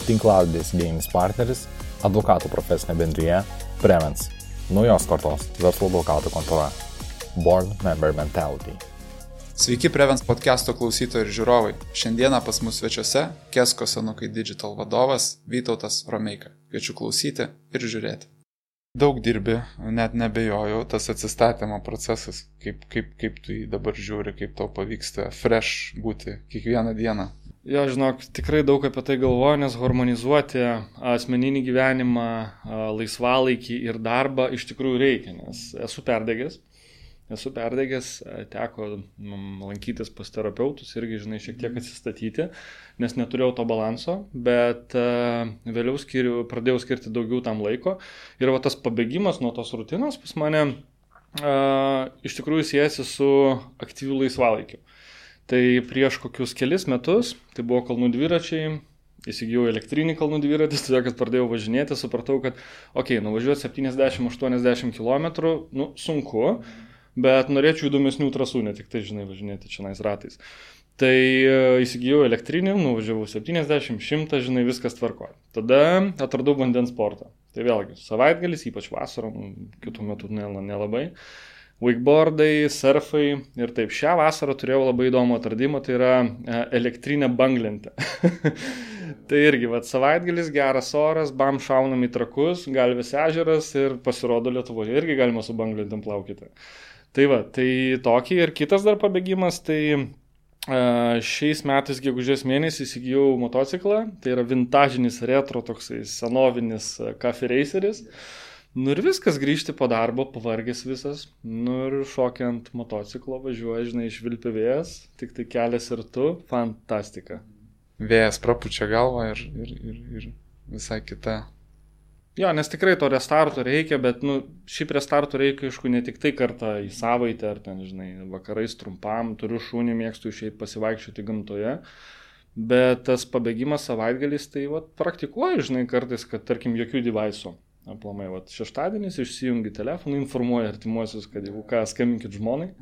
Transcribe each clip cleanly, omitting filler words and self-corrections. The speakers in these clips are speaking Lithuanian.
tinklalaidės idėjinis partneris, advokatų profesinė bendrija Prevens, naujos kartos verslo advokatų kontora, Born Member Mentality. Sveiki Prevens podcast'o klausytojai ir žiūrovai. Šiandieną pas mus svečiuose Kesko Senukai Digital vadovas Vytautas Romeika. Kviečiu klausyti ir žiūrėti. Daug dirbi, net nebejoju, tas atsistatymo procesas, kaip tu jį dabar žiūri, kaip tau pavyksta fresh būti kiekvieną dieną. Jo, žinok, tikrai daug apie tai galvoju, nes harmonizuoti asmeninį gyvenimą, laisvalaikį ir darbą iš tikrųjų reikia, nes esu perdegęs, teko lankytis pas terapeutus irgi, žinai, šiek tiek atsistatyti, nes neturėjau to balanso, bet vėliau pradėjau skirti daugiau tam laiko ir va tas pabėgimas nuo tos rutinos pas mane iš tikrųjų siejasi su aktyviu laisvalaikiu. Tai prieš kokius kelis metus, tai buvo kalnų dviračiai, įsigijau elektrinį kalnų dviratį, todėl kad pradėjau važinėti, supratau, kad nuvažiuoti 70-80 km, sunku, bet norėčiau įdomesnių trasų, ne tik tai, žinai, važinėti čionais ratais. Tai įsigijau elektrinį, nuvažiavau 70-100, žinai, viskas tvarko. Tada atradau vandens sportą. Tai vėlgi, savaitgalis, ypač vasarą, kitų metų nelabai. Wakeboardai, surfai ir taip. Šią vasarą turėjau labai įdomų atradimą, tai yra elektrinė banglentė. Tai irgi, savaitgalis, geras oras, bam, šaunam į Trakus, Galvės ežeras ir pasirodo Lietuvoje irgi galima su banglentėm plaukyti. Tai tai tokį ir kitas dar pabėgimas, tai šiais metais gegužės mėnesį įsigijau motociklą, tai yra vintažinis retro, toksai senovinis Cafe Raceris. Ir viskas, grįžti po darbo, pavargęs visas, ir šokiant motociklo važiuoja, žinai, švilpia vėjas, tik tai kelias ir tu, fantastika. Vėjas prapučia galvą ir visai kita. Jo, nes tikrai to restarto reikia, bet, šiaip restarto reikia, aišku, ne tik tai kartą į savaitę, ar ten, žinai, vakarais trumpam, turiu šunį, mėgstu išeiti pasivaikščioti gamtoje, bet tas pabėgimas savaitgalis, tai, praktikuoju, žinai, kartais, kad, tarkim, jokių devaisų. Aplamai, šeštadienis išsijungi telefoną, informuoja artimuosius, kad jau ką, skambinkit žmonai.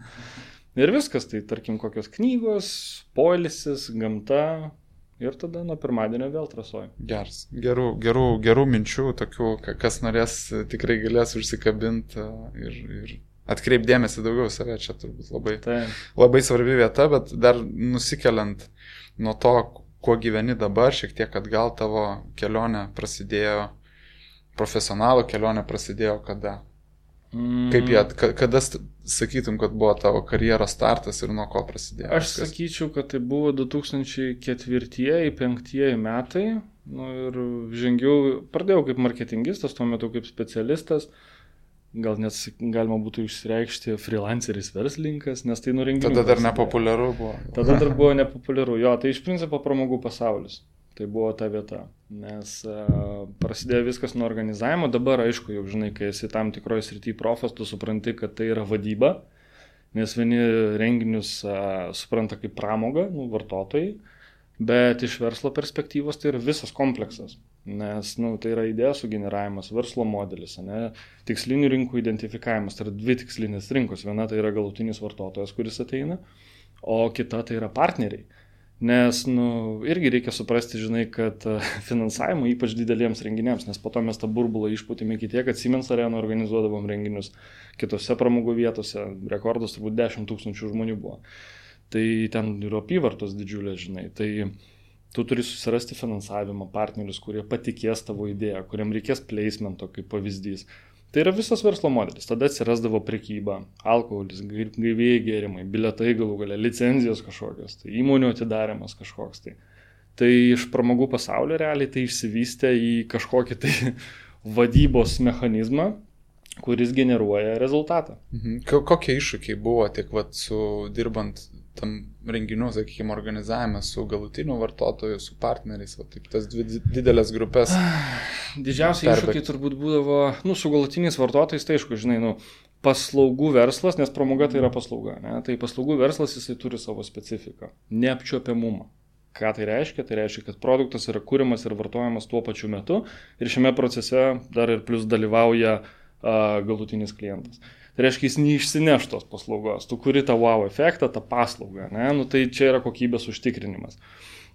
Ir viskas, tai tarkim kokios knygos, poilsis, gamta ir tada nuo pirmadienio vėl trasoju. Geras. Gerų minčių, tokių, kas norės, tikrai galės užsikabinti ir atkreipdėmėsi daugiau save, čia turbūt labai svarbi vieta, bet dar nusikeliant nuo to, kuo gyveni dabar, šiek tiek atgal tavo kelionė prasidėjo. Profesionalų kelionė prasidėjo kada? Kada sakytum, kad buvo tavo karjeros startas ir nuo ko prasidėjo? Aš sakyčiau, kad tai buvo 2004-2005 metai. Ir pradėjau kaip marketingistas, tuo metu kaip specialistas. Gal net galima būtų išsireikšti freelanceris verslininkas, nes tai renginių. Tada dar nepopuliaru buvo. Tada dar buvo nepopuliaru. Jo, tai iš principo pramogų pasaulis. Tai buvo ta vieta, nes prasidėjo viskas nuo organizavimo, dabar aišku, jau žinai, kai esi tam tikroje srityje profas, tu supranti, kad tai yra vadyba, nes vieni renginius supranta kaip pramogą, vartotojai, bet iš verslo perspektyvos tai yra visas kompleksas, nes tai yra idėjos sugeneravimas, verslo modelis, tikslinių rinkų identifikavimas, tai yra dvi tikslinės rinkos, viena tai yra galutinis vartotojas, kuris ateina, o kita tai yra partneriai. Nes, irgi reikia suprasti, žinai, kad finansavimo ypač dideliems renginiams, nes po to mes tą burbulą išpūtėme iki tiek, kad Siemens Arena organizuodavom renginius kitose pramogų vietose, rekordas turbūt 10 000 žmonių buvo. Tai ten yra apyvartos didžiulės, žinai, tai tu turi susirasti finansavimo partnerius, kurie patikės tavo idėją, kuriam reikės placemento kaip pavyzdys. Tai yra visas verslo modelis. Tada atsirasdavo prekyba, alkoholis, gaivieji gėrimai, bilietai galų gale, licenzijos kažkokios, tai įmonių atidarimas kažkoks. Tai iš pramogų pasaulio realiai tai išsivystė į kažkokį tai vadybos mechanizmą, kuris generuoja rezultatą. Kokie iššūkiai buvo tiek su dirbant tam renginių, sakykime, organizavime su galutiniu vartotoju, su partneriais, taip tas dvi didelės grupės. Didžiausiai iššūkiai turbūt būdavo, su galutiniais vartotojais, tai aišku, žinai, paslaugų verslas, nes pramoga tai yra paslauga, tai paslaugų verslas jisai turi savo specifiką, neapčiuopiamumą. Ką tai reiškia? Tai reiškia, kad produktas yra kuriamas ir vartojamas tuo pačiu metu ir šiame procese dar ir plus dalyvauja galutinis klientas. Tai reiškia, jis neišsineš tos paslaugos, tu kuri tą wow efektą, tą paslaugą, ne? Nu, tai čia yra kokybės užtikrinimas.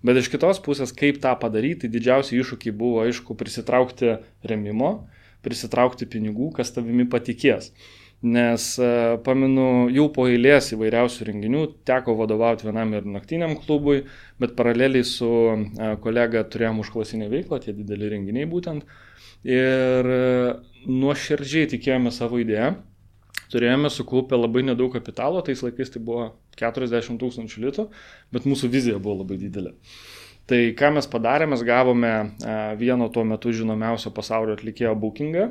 Bet iš kitos pusės, kaip tą padaryti, tai didžiausi iššūkiai buvo, aišku, prisitraukti remimo, prisitraukti pinigų, kas tavimi patikės. Nes pamenu, jau po eilės įvairiausių renginių teko vadovauti vienam ir naktiniam klubui, bet paraleliai su kolega turėjom užklasinę veiklą, tie dideli renginiai būtent. Ir nuoširdžiai tikėjome savo idėją. Turėjome sukaupę labai nedaug kapitalo, tais laikais tai buvo 40 000 litų, bet mūsų vizija buvo labai didelė. Tai ką mes padarėme, mes gavome vieno tuo metu žinomiausio pasaulio atlikėjo bookingą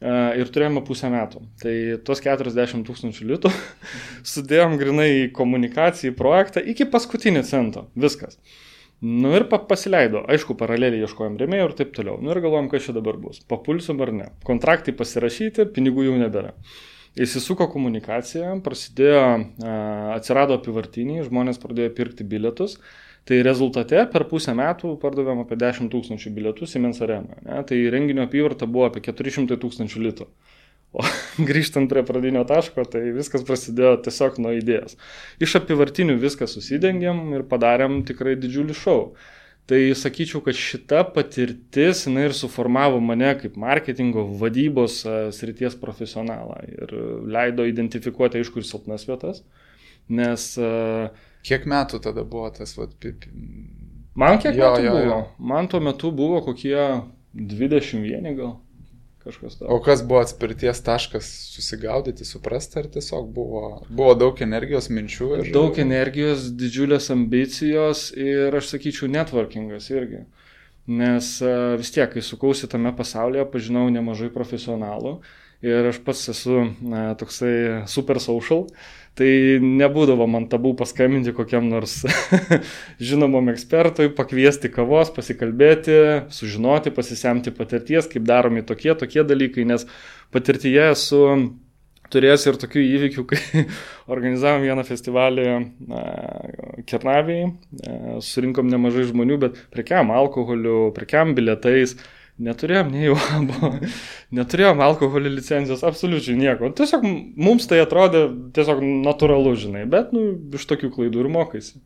ir turėjome pusę metų. Tai tos 40 000 litų sudėjom grinai į komunikaciją, į projektą iki paskutinį cento. Viskas. Nu ir pasileido. Aišku, paraleliai ieškojom rėmėjų ir taip toliau. Nu ir galvojom, kas čia dabar bus. Papulsim ar ne. Kontraktai pasirašyti, pinigų jau nebėra. Įsisuko komunikacija, prasidėjo, atsirado apivartiniai, žmonės pradėjo pirkti bilietus. Tai rezultate per pusę metų pardavėm apie 10 000 bilietų Siemens Arenoje. Tai renginio apyvarta buvo apie 400 000 litų. O grįžtant prie pradinio taško, tai viskas prasidėjo tiesiog nuo idėjos. Iš apivartinių viską susidengėm ir padarėm tikrai didžiulį šou. Tai sakyčiau, kad šita patirtis, jinai ir suformavo mane kaip marketingo vadybos srities profesionalą ir leido identifikuoti, aišku, ir silpnas vietas, nes... Kiek metų tada buvo tas? Man kiek metų buvo? Man tuo metu buvo kokie 21 gal. Kažkas to. O kas buvo atspirties taškas susigaudyti, suprasti, ar tiesiog buvo daug energijos, minčių? Daug energijos, didžiulės ambicijos ir, aš sakyčiau, networkingas irgi. Nes vis tiek, kai sukausi tame pasaulyje, pažinau nemažai profesionalų ir aš pats esu toksai super social, tai nebūdavo man tabų paskambinti kokiam nors žinomam ekspertui, pakviesti kavos, pasikalbėti, sužinoti, pasisemti patirties, kaip daromi tokie dalykai, nes patirtyje esu turėjęs ir tokių įvykių, kai organizavom vieną festivalį Kernavėje, surinkom nemažai žmonių, bet prekiam alkoholiu, prekiam bilietais, neturėjom nei UABO, neturėjom alkoholio licencijos, absoliučiai nieko. Tiesiog mums tai atrodė tiesiog natūralu, žinai, bet iš tokių klaidų ir mokaisi.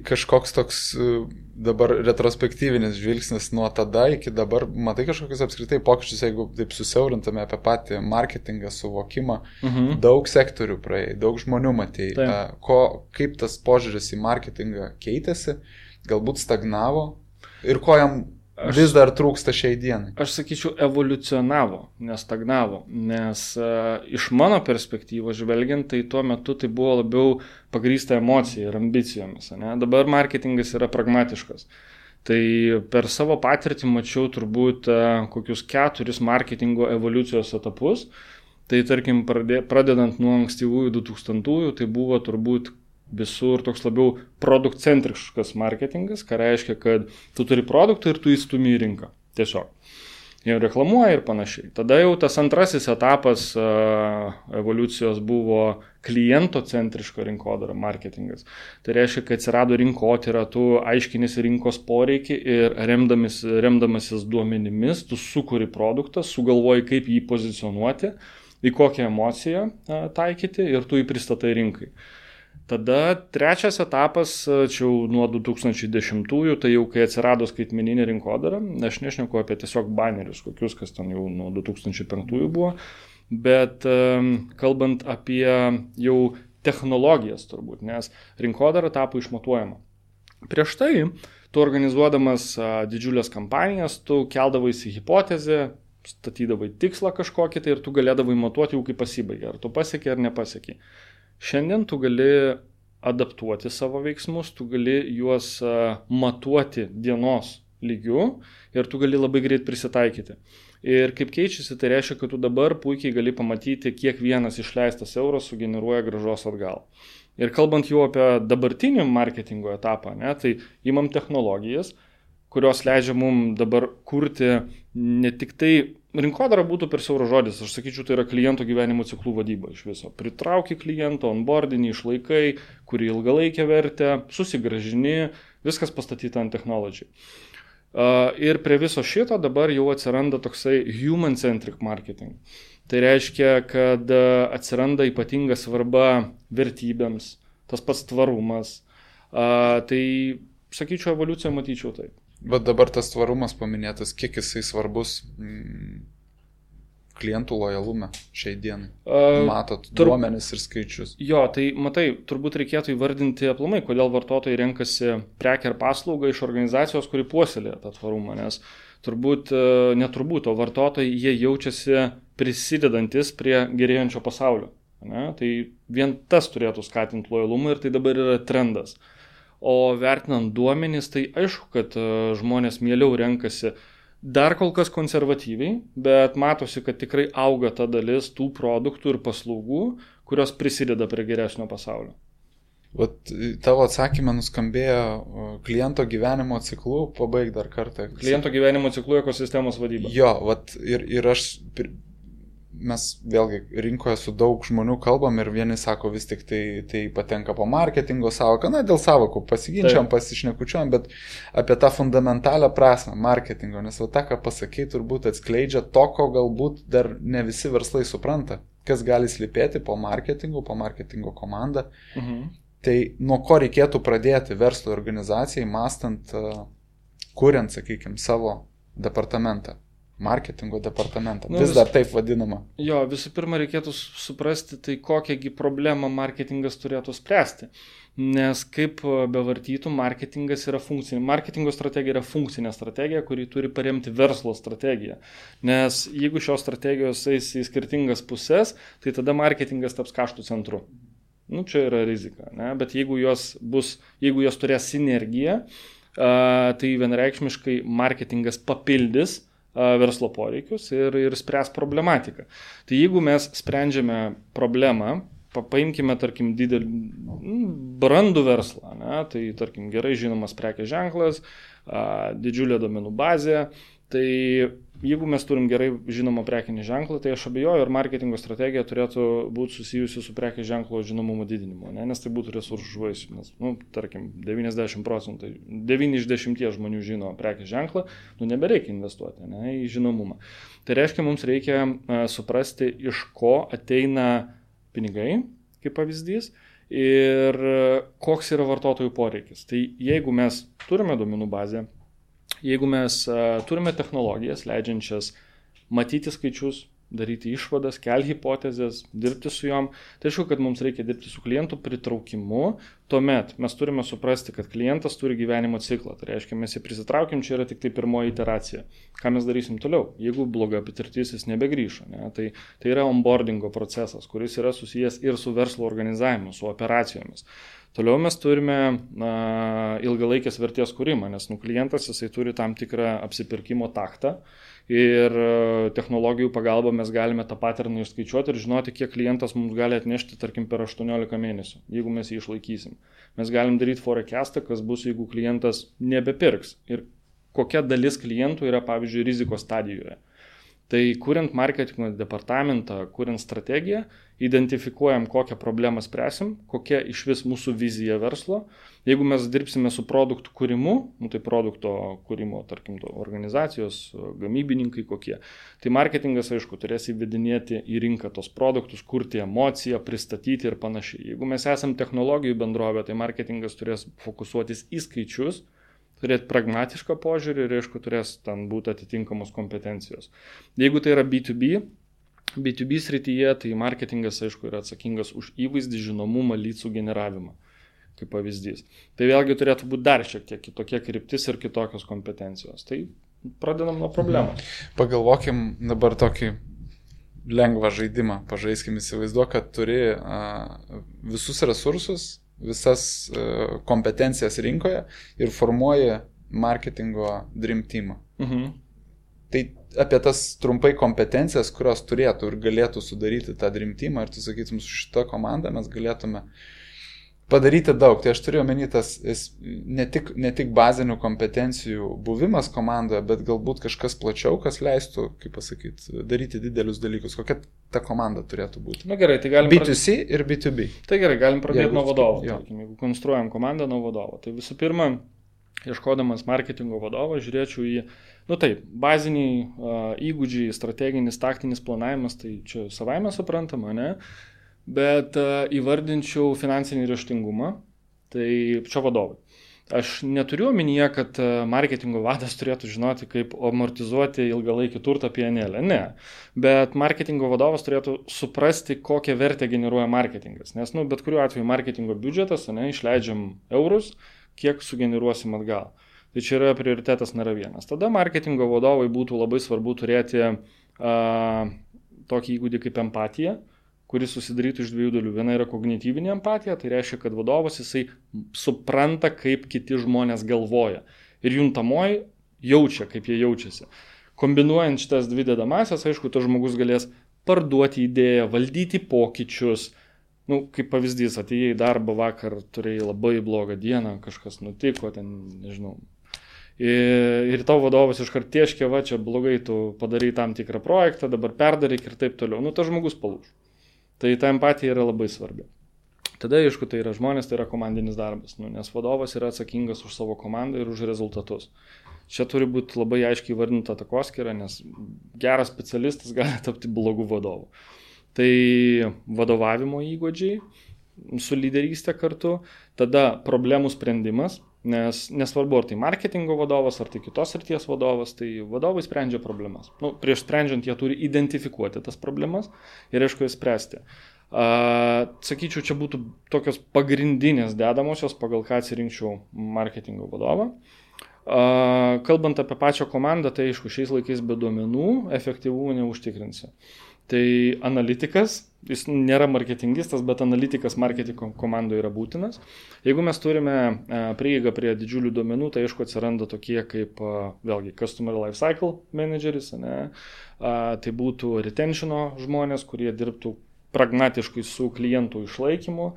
Kažkoks toks dabar retrospektyvinis žvilgsnis nuo tada iki dabar, matai kažkokius apskritai pokyčius, jeigu taip susiaurintume apie patį marketingą, suvokimą, daug sektorių praėjai, daug žmonių matėjai, kaip tas požiūris į marketingą keitėsi, galbūt stagnavo ir ko jam vis dar trūksta šiai dienai? Aš sakyčiau, evoliucionavo, nestagnavo, nes iš mano perspektyvos žvelgiant, tai tuo metu tai buvo labiau pagrįsta emocija ir ambicijomis. Ne? Dabar marketingas yra pragmatiškas. Tai per savo patirtį mačiau turbūt kokius 4 marketingo evoliucijos etapus. Tai tarkim, pradedant nuo ankstyvųjų 2000-ųjų, tai buvo turbūt visur toks labiau produktcentriškas marketingas, ką reiškia, kad tu turi produktą ir tu įstumi į rinką. Tiesiog. Jau reklamuoja ir panašiai. Tada jau tas antrasis etapas evoliucijos buvo klientocentriška rinkodara marketingas. Tai reiškia, kad atsirado rinkotyra, tu aiškinisi rinkos poreikį ir remdamasis duomenimis, tu sukuri produktą, sugalvoji, kaip jį pozicionuoti, į kokią emociją taikyti ir tu jį pristatai rinkai. Tada trečias etapas, čia jau nuo 2010-ųjų, tai jau kai atsirado skaitmeninė rinkodara, aš nešneku apie tiesiog banerius, kokius, kas ten jau nuo 2005-ųjų buvo, bet kalbant apie jau technologijas turbūt, nes rinkodara tapo išmatuojama. Prieš tai, tu organizuodamas didžiulės kampanijas, tu keldavaisi hipotezę, statydavai tikslą kažkokį tai ir tu galėdavai matuoti jau kaip pasibaigė, ar tu pasiekė ar nepasiekė. Šiandien tu gali adaptuoti savo veiksmus, tu gali juos matuoti dienos lygiu ir tu gali labai greit prisitaikyti. Ir kaip keičiasi, tai reiškia, kad tu dabar puikiai gali pamatyti, kiek vienas išleistas euras sugeneruoja grąžos atgal. Ir kalbant jau apie dabartinį marketingo etapą, tai imam technologijas, kurios leidžia mums dabar kurti ne tik tai, rinkodara būtų per siauras žodis, aš sakyčiau, tai yra kliento gyvenimo ciklų vadyba iš viso. Pritrauki klientą, onboardinį, išlaikai, kurį ilgalaikę vertę, susigražini, viskas pastatyta ant technology. Ir prie viso šito dabar jau atsiranda toksai human-centric marketing. Tai reiškia, kad atsiranda ypatinga svarba vertybėms, tas pats tvarumas. Tai, sakyčiau, evoliuciją matyčiau taip. Bet dabar tas tvarumas paminėtas, kiek jisai svarbus klientų lojalume šiai dienai? Matot duomenis ir skaičius. Jo, tai matai, turbūt reikėtų įvardinti aplamai, kodėl vartotojai renkasi prekę ar paslaugą iš organizacijos, kuri puoselėja tą tvarumą, nes neturbūt, o vartotojai jie jaučiasi prisidedantis prie gerėjančio pasaulio. Ne? Tai vien tas turėtų skatinti lojalumą ir tai dabar yra trendas. O vertinant duomenys, tai aišku, kad žmonės mieliau renkasi dar kol kas konservatyviai, bet matosi, kad tikrai auga ta dalis tų produktų ir paslaugų, kurios prisideda prie geresnio pasaulio. Vat tavo atsakymą nuskambėjo kliento gyvenimo ciklu, pabaig dar kartą. Kliento gyvenimo ciklu ekosistemos vadyba. Jo, vat ir mes vėlgi rinkoje su daug žmonių kalbam ir vieni sako vis tik tai patenka po marketingo savoką, dėl savokų pasiginčiam, pasišnekučiam, bet apie tą fundamentalią prasme marketingo, nes tą, ką pasakei, turbūt atskleidžia to, ko galbūt dar ne visi verslai supranta, kas gali slypėti po marketingo komandą. Tai nuo ko reikėtų pradėti verslo organizacijai, mąstant, kuriant, sakykime, savo departamentą. Marketingo departamentą. Vis dar taip vadinama. Jo, visų pirma reikėtų suprasti, tai kokiągi problemą marketingas turėtų spręsti. Nes kaip bevartytų, marketingas yra funkcinė. Marketingo strategija yra funkcinė strategija, kuri turi paremti verslo strategiją. Nes jeigu šios strategijos eis į skirtingas pusės, tai tada marketingas taps kaštų centru. Čia yra rizika. Ne? Bet jeigu jos turės sinergiją, tai vienareikšmiškai marketingas papildys verslo poreikius ir spręs problematiką. Tai jeigu mes sprendžiame problemą, paimkime, tarkim, didelį brandų verslą, ne? Tai, tarkim, gerai žinomas prekės ženklas, didžiulė duomenų bazė, tai jeigu mes turim gerai žinomą prekinį ženklą, tai aš abejoju, ar marketingo strategija turėtų būti susijusi su prekės ženklo žinomumo didinimu, ne? Nes tai būtų resursų švaistymas. Tarkim, 90%, 9 iš 10 žmonių žino prekės ženklą, nebereikia investuoti, ne, į žinomumą. Tai reiškia, mums reikia suprasti, iš ko ateina pinigai, kaip pavyzdys, ir koks yra vartotojų poreikis. Tai jeigu mes turime duomenų bazę, jeigu mes turime technologijas, leidžiančias matyti skaičius, daryti išvadas, kelti hipotezės, dirbti su jom, tai aišku, kad mums reikia dirbti su klientų pritraukimu, tuomet mes turime suprasti, kad klientas turi gyvenimo ciklą, tai reiškia, mes jį prisitraukim, čia yra tik tai pirmoji iteracija. Ką mes darysim toliau? Jeigu bloga patirtis, jis nebegrįžo, ne? Tai yra onboardingo procesas, kuris yra susijęs ir su verslo organizavimu, su operacijomis. Toliau mes turime ilgalaikės vertės kūrimą, nes klientas jisai turi tam tikrą apsipirkimo taktą ir technologijų pagalba mes galime tą paterną išskaičiuoti ir žinoti, kiek klientas mums gali atnešti, tarkim, per 18 mėnesių, jeigu mes jį išlaikysim. Mes galim daryti forecastą, kas bus, jeigu klientas nebepirks ir kokia dalis klientų yra, pavyzdžiui, rizikos stadijoje. Tai kuriant marketingo departamentą, kuriant strategiją, identifikuojam, kokią problemą spręsim, kokia iš vis mūsų vizija verslo. Jeigu mes dirbsime su produktų kūrimu, tai produkto kūrimo, tarkim, organizacijos, gamybininkai kokie, tai marketingas, aišku, turės įvedinėti į rinką tos produktus, kurti emociją, pristatyti ir panašiai. Jeigu mes esam technologijų bendrovė, tai marketingas turės fokusuotis į skaičius, turėti pragmatišką požiūrį ir, aišku, turės ten būti atitinkamos kompetencijos. Jeigu tai yra B2B srityje, tai marketingas, aišku, yra atsakingas už įvaizdį, žinomumą, leadsų generavimą, kaip pavyzdys. Tai vėlgi turėtų būti dar šiek tiek kitokia kryptis ir kitokios kompetencijos. Tai pradedam nuo problemos. Pagalvokim dabar tokį lengvą žaidimą. Pažaiskim, įsivaizduok, kad turi visus resursus, visas kompetencijas rinkoje ir formuoji marketingo dream teamą. Tai apie tas trumpai kompetencijas, kurios turėtų ir galėtų sudaryti tą dream teamą ir tu sakytum, su šita komanda mes galėtume padaryti daug. Tai aš turiu omeny tas ne tik bazinių kompetencijų buvimas komandoje, bet galbūt kažkas plačiau, kas leistų, kaip pasakyti, daryti didelius dalykus. Kokia ta komanda turėtų būti? Na gerai, tai galim B2C ir B2B. Tai gerai, galim pradėti nuo vadovo. Jeigu konstruojam komandą nuo vadovo. Tai visų pirma, ieškodamas marketingo vadovo, žiūrėčiau į, baziniai įgūdžiai, strateginis, taktinis planavimas, tai čia savaime suprantama, ne? Bet įvardinčiau finansinį raštingumą, tai čia vadovai. Aš neturiu omenyje, kad marketingo vadas turėtų žinoti, kaip amortizuoti ilgalaikį turtą PNL. Ne. Bet marketingo vadovas turėtų suprasti, kokią vertę generuoja marketingas. Nes, bet kuriuo atveju marketingo biudžetas, išleidžiam eurus, kiek sugeneruosim atgal. Tai čia yra prioritetas nėra vienas. Tada marketingo vadovai būtų labai svarbu turėti tokį įgūdį kaip empatija, kuris susidarytų iš dviejų dalių. Viena yra kognityvinė empatija, tai reiškia, kad vadovas jisai supranta, kaip kiti žmonės galvoja. Ir juntamoji jaučia, kaip jie jaučiasi. Kombinuojant šitas dvi dedamasias, aišku, tas žmogus galės parduoti idėją, valdyti pokyčius. Kaip pavyzdys, atėjai į darbą vakar, turėjai labai blogą dieną, kažkas nutiko, nežinau. Ir tavo vadovas iškart tieškia, čia blogai, tu padarai tam tikrą projektą, dabar perdaryk ir taip toliau. Tas žmogus palūž. Tai ta empatija yra labai svarbi. Tada, aišku, tai yra žmonės, tai yra komandinis darbas, nes vadovas yra atsakingas už savo komandą ir už rezultatus. Čia turi būti labai aiškiai įvardinta takoskyra, nes geras specialistas gali tapti blogų vadovų. Tai vadovavimo įgūdžiai su lyderystė kartu, tada problemų sprendimas, nes nesvarbu, ar tai marketingo vadovas, ar tai kitos srities vadovas, tai vadovai sprendžia problemas. Prieš sprendžiant jie turi identifikuoti tas problemas ir aišku jas spręsti. Sakyčiau, čia būtų tokios pagrindinės dedamosios, pagal ką atsirinkčiau marketingo vadovą. Kalbant apie pačią komandą, tai aišku, šiais laikais be duomenų efektyvumų neužtikrinsi. Tai analitikas, jis nėra marketingistas, bet analitikas marketingo komandoje yra būtinas. Jeigu mes turime prieigą prie didžiulių duomenų, tai aišku atsiranda tokie kaip, vėlgi, Customer Lifecycle Manageris, tai būtų retentiono žmonės, kurie dirbtų pragmatiškai su klientų išlaikymu,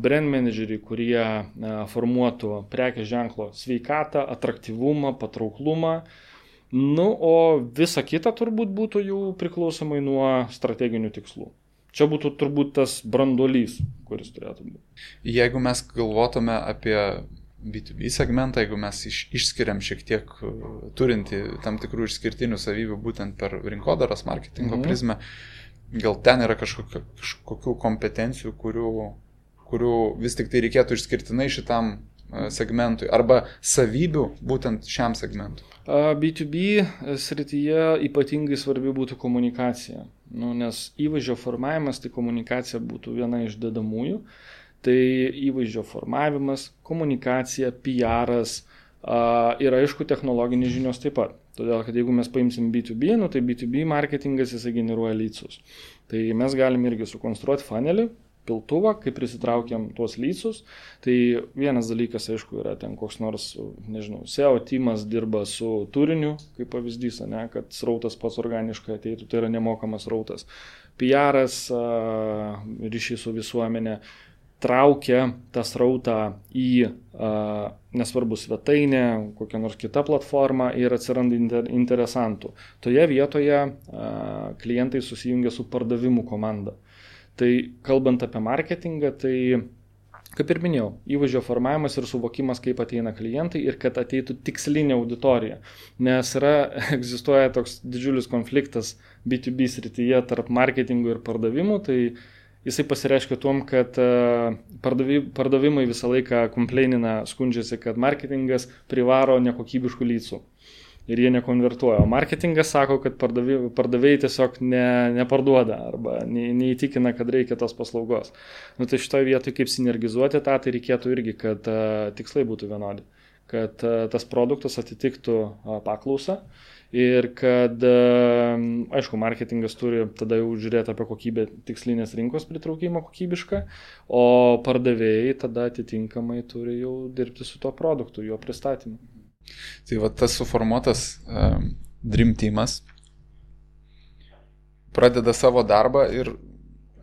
brand manageriai, kurie formuotų prekės ženklo sveikatą, atraktyvumą, patrauklumą. O visa kita turbūt būtų jau priklausomai nuo strateginių tikslų. Čia būtų turbūt tas branduolys, kuris turėtų būti. Jeigu mes galvotume apie B2B segmentą, jeigu mes išskiriam šiek tiek turinti tam tikrų išskirtinių savybių būtent per rinkodaros marketingo prizmę, gal ten yra kažkokių kompetencijų, kurių vis tik tai reikėtų išskirtinai šitam segmentui arba savybių būtent šiam segmentui? B2B srityje ypatingai svarbi būtų komunikacija, nes įvaizdžio formavimas, tai komunikacija būtų viena iš dedamųjų. Tai įvaizdžio formavimas, komunikacija, PR'as ir aišku technologinės žinios taip pat. Todėl, kad jeigu mes paimsim B2B, tai B2B marketingas jisai generuoja leadsus. Tai mes galim irgi sukonstruoti funnelį, piltuvą, kai prisitraukiam tuos leadsus. Tai vienas dalykas, aišku, yra ten koks nors, SEO teamas dirba su turiniu, kaip pavyzdys, kad srautas pats organiškai ateitų, tai yra nemokamas srautas. PR'as, ryšys su visuomenė, traukia tą srautą į, nesvarbu, svetainę, kokią nors kitą platformą ir atsiranda interesantų. Toje vietoje klientai susijungia su pardavimų komanda. Tai kalbant apie marketingą, tai, kaip ir minėjau, įvaizdžio formavimas ir suvokimas, kaip ateina klientai ir kad ateitų tikslinė auditorija. Nes egzistuoja toks didžiulis konfliktas B2B srityje tarp marketingų ir pardavimų, tai jisai pasireiškia tuom, kad pardavimai visą laiką komplainina, skundžiasi, kad marketingas privaro nekokybiškų leadsų. Ir jie nekonvertuoja. O marketingas sako, kad pardavėjai tiesiog neparduoda arba neįtikina, kad reikia tos paslaugos. Tai šitoje vietoje kaip sinergizuoti tą, tai reikėtų irgi, kad tikslai būtų vienodi. Kad tas produktas atitiktų paklausą ir kad, aišku, marketingas turi tada jau žiūrėti apie kokybę tikslinės rinkos pritraukimą kokybišką, o pardavėjai tada atitinkamai turi jau dirbti su tuo produktu, jo pristatymu. Tai va tas suformuotas Dream Teamas pradeda savo darbą ir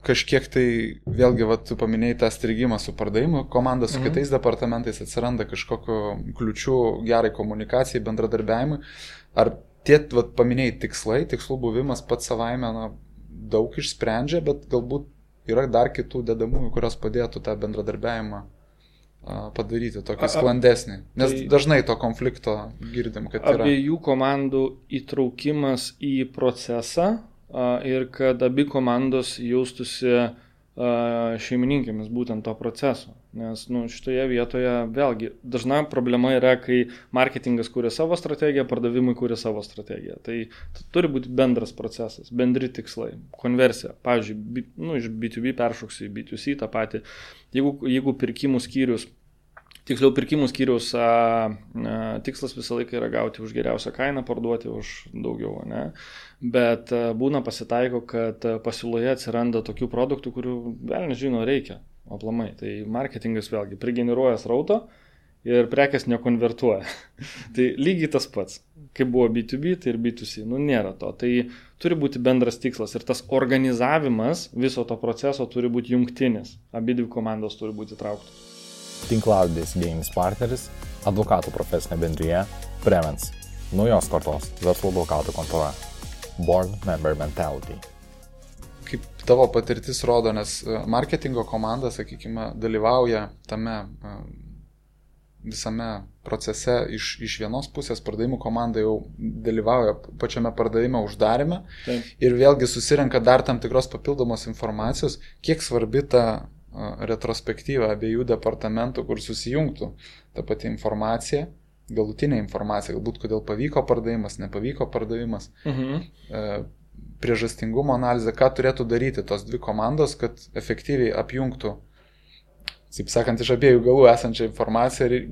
kažkiek tai, vėlgi, tu paminėjai tą strigimą su pardavimu, komanda su kitais departamentais, atsiranda kažkokio kliučių gerai komunikacijai, bendradarbiavimui. Ar tie, paminėjai tikslų buvimas pats savaime daug išsprendžia, bet galbūt yra dar kitų dedamųjų, kurios padėtų tą bendradarbiavimą padaryti tokį sklandesnį? Nes dažnai to konflikto girdim, kad yra. Abiejų komandų įtraukimas į procesą ir kad abi komandos jaustųsi šeimininkėmis būtent to proceso. Nes šitoje vietoje vėlgi dažna problema yra, kai marketingas kūrė savo strategiją, pardavimai kūrė savo strategiją. Tai turi būti bendras procesas, bendri tikslai, konversija. Pavyzdžiui, iš B2B peršoksiu į B2C tą patį. Jeigu pirkimų skyrius tikslas visą laiką yra gauti už geriausią kainą, parduoti už daugiau, ne? Bet būna pasitaiko, kad pasiūloje atsiranda tokių produktų, kurių vėl nežino reikia aplamai. Tai marketingas vėlgi prigeneruoja srauto ir prekės nekonvertuoja. Tai lygiai tas pats, kaip buvo B2B, tai ir B2C. Nėra to. Tai turi būti bendras tikslas ir tas organizavimas viso to proceso turi būti jungtinis. Abidvi komandos turi būti įtrauktos. Tinklalaidės idėjinis partneris, advokatų profesinė bendrija Prevence, naujos kartos verslo advokatų kontora, Board Member Mentality. Kaip tavo patirtis rodo, nes marketingo komanda, sakykime, dalyvauja tame visame procese iš vienos pusės, pardavimų komanda jau dalyvauja pačiame pardavimo uždarime. Taip. Ir vėlgi susirenka dar tam tikros papildomos informacijos, kiek svarbi ta retrospektyva abiejų departamentų, kur susijungtų ta pati informacija, galutinė informacija, galbūt kodėl pavyko pardavimas, nepavyko pardavimas, priežastingumo analizė, ką turėtų daryti tos dvi komandos, kad efektyviai apjungtų, taip sakant, iš abiejų galų esančią informaciją ir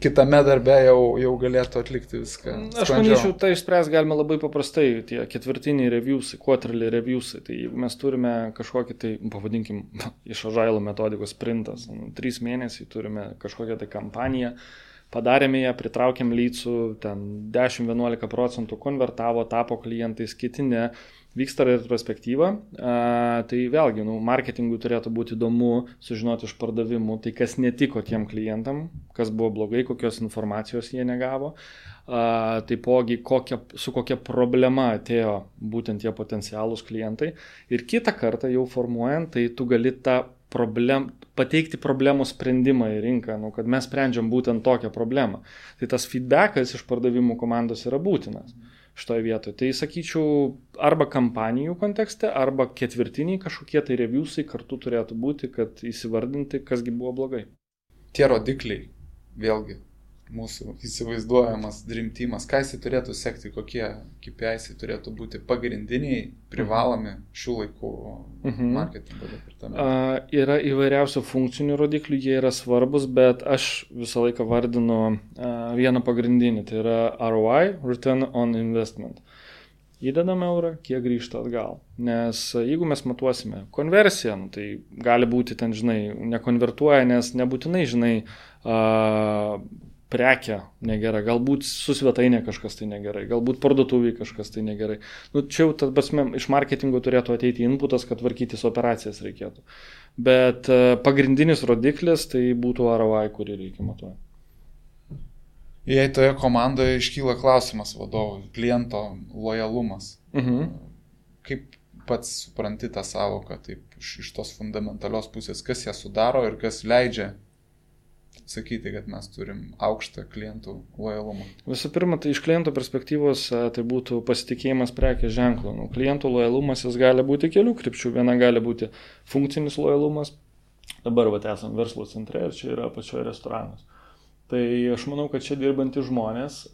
kitame darbe jau galėtų atlikti viską. Aš manyčiau, tai išspręs galime labai paprastai, tie ketvirtiniai reviewsai, quarterly reviewsai, tai jeigu mes turime kažkokį tai, pavadinkim, iš Agile metodikos sprintas, 3 mėnesiai turime kažkokią tai kampaniją, padarėme ją, pritraukėm leadsų, ten 10-11% konvertavo, tapo klientais, kiti ne, vyksta retrospektyva, tai vėlgi, marketingui turėtų būti įdomu sužinoti iš pardavimų, tai kas netiko tiem klientam, kas buvo blogai, kokios informacijos jie negavo, taipogi su kokia problema atėjo būtent tie potencialūs klientai ir kitą kartą jau formuojant, tai tu gali pateikti problemų sprendimą į rinką, kad mes sprendžiam būtent tokią problemą. Tai tas feedbackas iš pardavimų komandos yra būtinas šitoje vietoje. Tai sakyčiau, arba kampanijų kontekste, arba ketvirtiniai kažkokie tai reviewsai kartu turėtų būti, kad įsivardinti, kasgi buvo blogai. Tie rodikliai, vėlgi, mūsų įsivaizduojamas Dream Teamas, ką jisai turėtų sekti, kokie KPIs turėtų būti pagrindiniai, privalomi šių laikų marketingo departamentų. Yra įvairiausių funkcinių rodiklių, jie yra svarbus, bet aš visą laiką vardinu vieną pagrindinį, tai yra ROI, Return on Investment. Įdedame eurą, kiek grįžta atgal. Nes jeigu mes matuosime konversiją, tai gali būti ten, nekonvertuoja, nes nebūtinai, prekia negerai, galbūt su svetainė kažkas tai negerai, galbūt parduotuviai kažkas tai negerai. Čia jau iš marketingo turėtų ateiti inputas, kad tvarkytis operacijas reikėtų. Bet pagrindinis rodiklis tai būtų ROI, kurį reikia matuoti. Jei toje komandoje iškyla klausimas vadovui, kliento lojalumas, kaip pats supranti tą savoką taip, iš tos fundamentalios pusės, kas ją sudaro ir kas leidžia sakyti, kad mes turim aukštą klientų lojalumą? Visų pirma, tai iš kliento perspektyvos tai būtų pasitikėjimas prekės ženklu. Klientų lojalumas jis gali būti kelių krypčių. Viena gali būti funkcinis lojalumas. Dabar esam verslo centre ir čia yra pačioje restoranas. Tai aš manau, kad čia dirbantys žmonės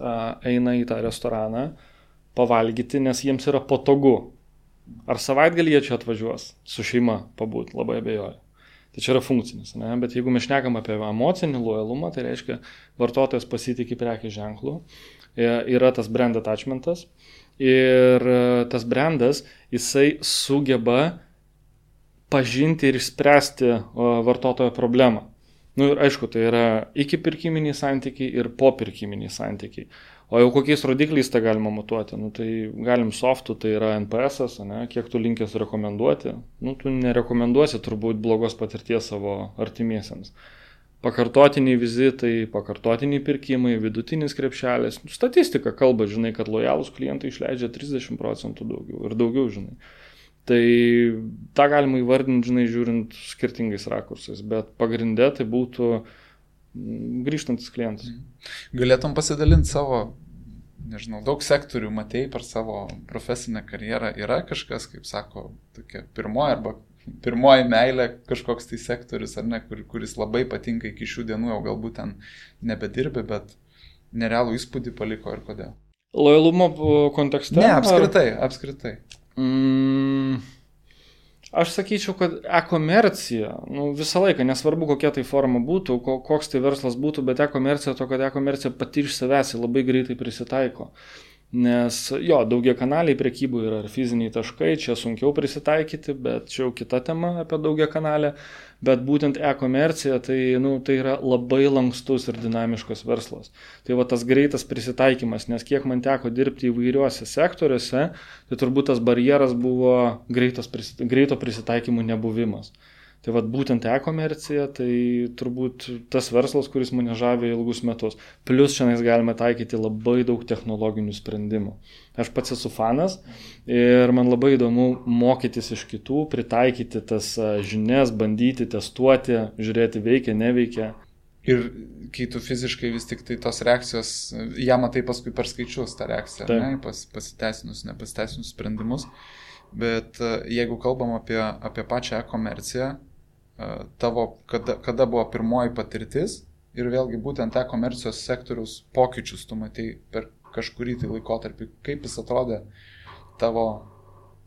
eina į tą restoraną pavalgyti, nes jiems yra patogu. Ar savaitgalį jie čia atvažiuos su šeima pabūt, labai abejoju. Tai čia yra funkcinis, ne? Bet jeigu mes šnekam apie emocinį lojalumą, tai reiškia vartotojas pasitikė prekės ženklu, yra tas brand attachmentas ir tas brandas, jisai sugeba pažinti ir išspręsti vartotojo problemą. Ir aišku, tai yra iki pirkiminiai santykiai ir po pirkiminiai santykiai. O jau kokiais rodikliais tą galima matuoti? Tai galim softų, tai yra NPS-as, kiek tu linkęs rekomenduoti. Tu nerekomenduosi turbūt blogos patirties savo artimiesiems. Pakartotiniai vizitai, pakartotiniai pirkimai, vidutinis krepšelis. Statistika kalba, kad lojalūs klientai išleidžia 30% daugiau ir daugiau, Tai tą galima įvardinti, žiūrint skirtingais rakursais, bet pagrinde tai būtų grįžtantis klientas. Galėtum pasidalinti savo, nežinau, daug sektorių matei per savo profesinę karjerą. Yra kažkas, kaip sako, tokia pirmoji meilė kažkoks tai sektorius, ar ne, kuris labai patinka iki šių dienų, jau galbūt ten nebedirbi, bet nerealų įspūdį paliko ir kodėl? Lojalumo kontekste? Ne, apskritai. Aš sakyčiau, kad e-komercija, visą laiką, nesvarbu kokia tai forma būtų, koks tai verslas būtų, bet e-komercija to, kad e-komercija pati iš savęs labai greitai prisitaiko. Nes daugiakanaliai prekybų yra ir fiziniai taškai, čia sunkiau prisitaikyti, bet čia jau kita tema apie daugiakanalę, bet būtent e-komercija tai yra labai lankstus ir dinamiškas verslas. Tai va tas greitas prisitaikymas, nes kiek man teko dirbti įvairiuose sektoriuose, tai turbūt tas barjeras buvo greito prisitaikymų nebuvimas. Tai vat būtent e-komercija, tai turbūt tas verslas, kuris mane žavė ilgus metus. Plius šiandien galime taikyti labai daug technologinių sprendimų. Aš pats esu fanas ir man labai įdomu mokytis iš kitų, pritaikyti tas žinias, bandyti, testuoti, žiūrėti veikia, neveikia. Ir kai tu fiziškai vis tik tai tos reakcijos, ją matai paskui per skaičius tą reakciją, ne, pasiteisinus, nepasiteisinus sprendimus. Bet jeigu kalbam apie pačią e-komerciją, tavo, kada buvo pirmoji patirtis ir vėlgi būtent e-komercijos sektoriaus pokyčius tu matei per kažkurį tai laikotarpį, kaip jis atrodė tavo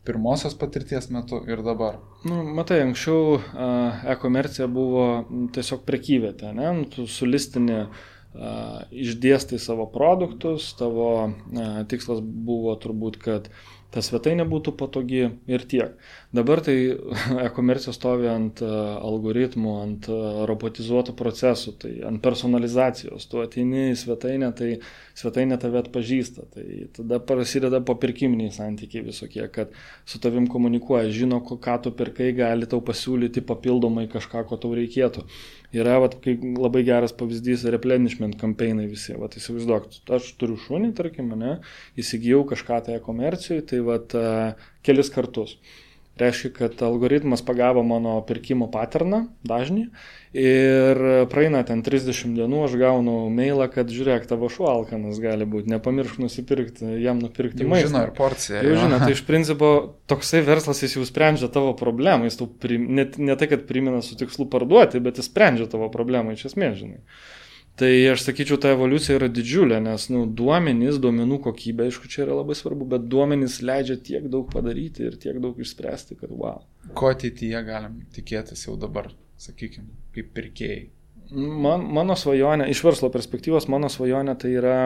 pirmosios patirties metu ir dabar? Matai, anksčiau e-komercija buvo tiesiog prekyvietė, ne? Tu sulistini, išdėstai savo produktus, tavo tikslas buvo turbūt, kad ta svetainė būtų patogi ir tiek. Dabar tai e-komercija stovi ant algoritmų, ant robotizuotų procesų, tai ant personalizacijos. Tu ateini į svetainę, tai svetainė tave atpažįsta. Tai tada prasideda popirkiminiai santykiai visokie, kad su tavim komunikuoja, žino, ką tu pirkai, gali tau pasiūlyti papildomai kažką, ko tau reikėtų. Yra labai geras pavyzdys replenishment kampeinai visi. Įsivaizduok, aš turiu šunį, tarkim, įsigijau kažką tai e-komercijai, tai kelis kartus. Reiškia, kad algoritmas pagavo mano pirkimo patterną, dažnį, ir praeina ten 30 dienų, aš gaunu mailą, kad žiūrėk, tavo šuo alkanas gali būti, nepamiršk nusipirkti, jam nupirkti maistą. Jau žino ir porciją. Jau žino, tai iš principo toksai verslas jis jau sprendžia tavo problemą, jis tau ne tai, kad primena su tikslu parduoti, bet jis sprendžia tavo problemą iš esmės, žinai. Tai aš sakyčiau, ta evoliucija yra didžiulė, nes duomenys, duomenų kokybė, aišku, čia yra labai svarbu, bet duomenys leidžia tiek daug padaryti ir tiek daug išspręsti, kad wow. Ko ateityje galim tikėtis jau dabar, sakykime, kaip pirkėjai? Mano svajonė, iš verslo perspektyvos, mano svajonė tai yra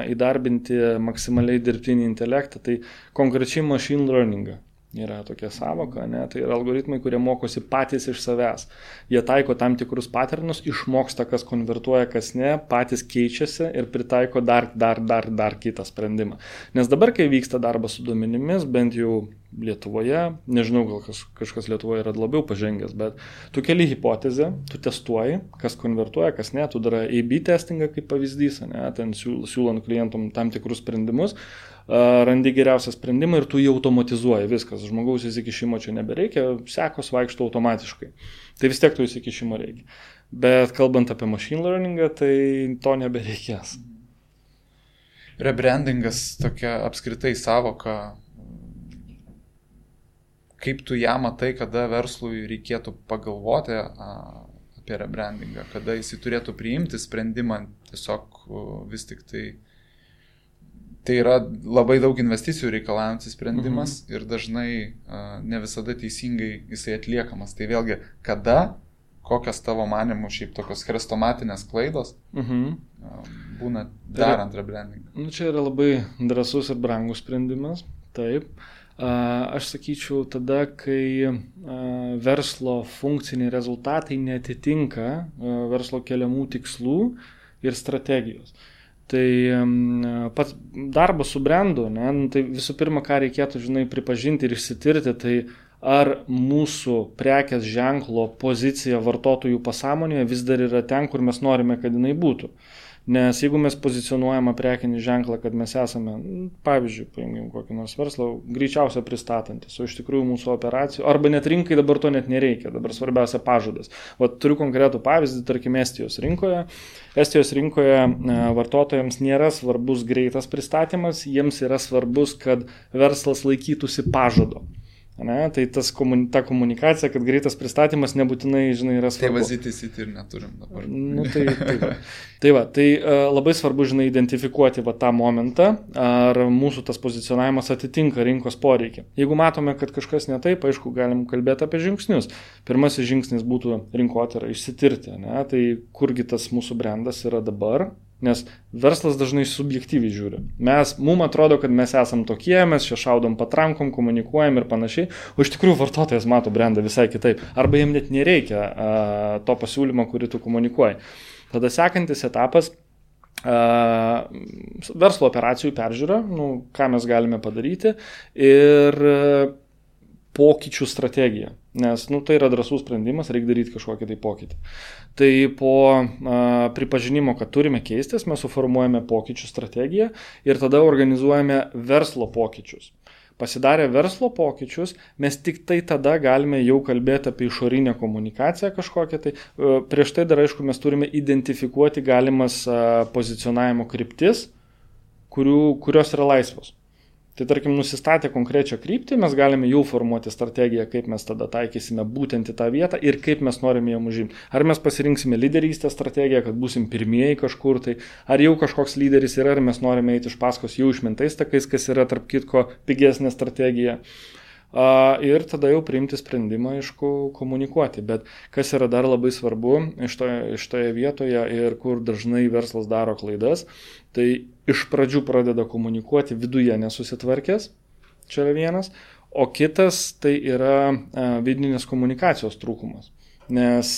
įdarbinti maksimaliai dirbtinį intelektą, tai konkrečiai machine learningą. Yra tokia savoka, tai yra algoritmai, kurie mokosi patys iš savęs. Jie taiko tam tikrus paternus, išmoksta, kas konvertuoja, kas ne, patys keičiasi ir pritaiko dar kitą sprendimą. Nes dabar, kai vyksta darbas su duomenimis, bent jau Lietuvoje, nežinau, gal kažkas Lietuvoje yra labiau pažengęs, bet tu keli hipotezę, tu testuoji, kas konvertuoja, kas ne, tu darai A/B testingą kaip pavyzdys, ten siūlant klientum tam tikrus sprendimus, randi geriausią sprendimą ir tu jį automatizuoji, viskas, žmogaus įsikišimo čia nebereikia, sekos vaikšto automatiškai. Tai vis tiek to įsikišimo reikia. Bet kalbant apie machine learningą, tai to nebereikės. Rebrandingas tokia apskritai savoka. Kaip tu ją matai, kada verslui reikėtų pagalvoti apie rebrandingą, kada jis turėtų priimti sprendimą, tiesiog vis tik tai yra labai daug investicijų reikalaujantis sprendimas ir dažnai ne visada teisingai jisai atliekamas. Tai vėlgi, kada, kokios tavo manimų šiaip tokios chrestomatinės klaidos būna darant rebrandingą? Čia yra labai drąsus ir brangus sprendimas, taip. Aš sakyčiau, tada, kai verslo funkciniai rezultatai neatitinka verslo keliamų tikslų ir strategijos. Tai pats darbas su brandu, tai visų pirma, ką reikėtų, pripažinti ir išsitirti, tai ar mūsų prekės ženklo pozicija vartotojų pasąmonėje vis dar yra ten, kur mes norime, kad jinai būtų. Nes jeigu mes pozicionuojame prekinį ženklą, kad mes esame, pavyzdžiui, paimkim kokį nors verslą, greičiausia pristatantis, o iš tikrųjų mūsų operacijų, arba net rinkai dabar to net nereikia, dabar svarbiausia pažadas. Turiu konkretų pavyzdį, tarkim, Estijos rinkoje. Estijos rinkoje vartotojams nėra svarbus greitas pristatymas, jiems yra svarbus, kad verslas laikytųsi pažado. Ne, tai ta komunikacija, kad greitas pristatymas nebūtinai, žinai, yra svarbu. Tai vazitysyti ir neturim dabar. Tai labai svarbu, žinai, identifikuoti tą momentą, ar mūsų tas pozicionavimas atitinka rinkos poreikį. Jeigu matome, kad kažkas ne taip, aišku, galim kalbėti apie žingsnius. Pirmasis žingsnis būtų rinkotyrą, išsitirti, ne, tai kurgi tas mūsų brandas yra dabar. Nes verslas dažnai subjektyviai žiūri. Mums atrodo, kad mes esam tokie, mes čia šaudom patrankom, komunikuojam ir panašiai, o iš tikrųjų vartotojas mato brandą visai kitaip. Arba jam net nereikia to pasiūlymo, kurį tu komunikuoji. Tada sekantis etapas verslo operacijų peržiūra, ką mes galime padaryti ir pokyčių strategija. Nes tai yra drąsus sprendimas, reikia daryti kažkokį tai pokytį. Tai po pripažinimo, kad turime keistis, mes suformuojame pokyčių strategiją ir tada organizuojame verslo pokyčius. Pasidarę verslo pokyčius, mes tik tai tada galime jau kalbėti apie išorinę komunikaciją kažkokią. Tai prieš tai dar, aišku, mes turime identifikuoti galimas pozicionavimo kryptis, kurios yra laisvos. Tai tarkim, nusistatę konkrečią kryptį, mes galime jau formuoti strategiją, kaip mes tada taikysime būtent į tą vietą ir kaip mes norime ją užimti. Ar mes pasirinksime lyderystės strategiją, kad būsim pirmieji kažkur, tai ar jau kažkoks lyderis yra, ar mes norime eiti iš paskos jau išmintais takais, kas yra tarp kitko pigesnė strategija. Ir tada jau priimti sprendimą, aišku, komunikuoti. Bet kas yra dar labai svarbu šitoje vietoje ir kur dažnai verslas daro klaidas, tai iš pradžių pradeda komunikuoti viduje nesusitvarkęs, čia yra vienas, o kitas tai yra vidinės komunikacijos trūkumas. Nes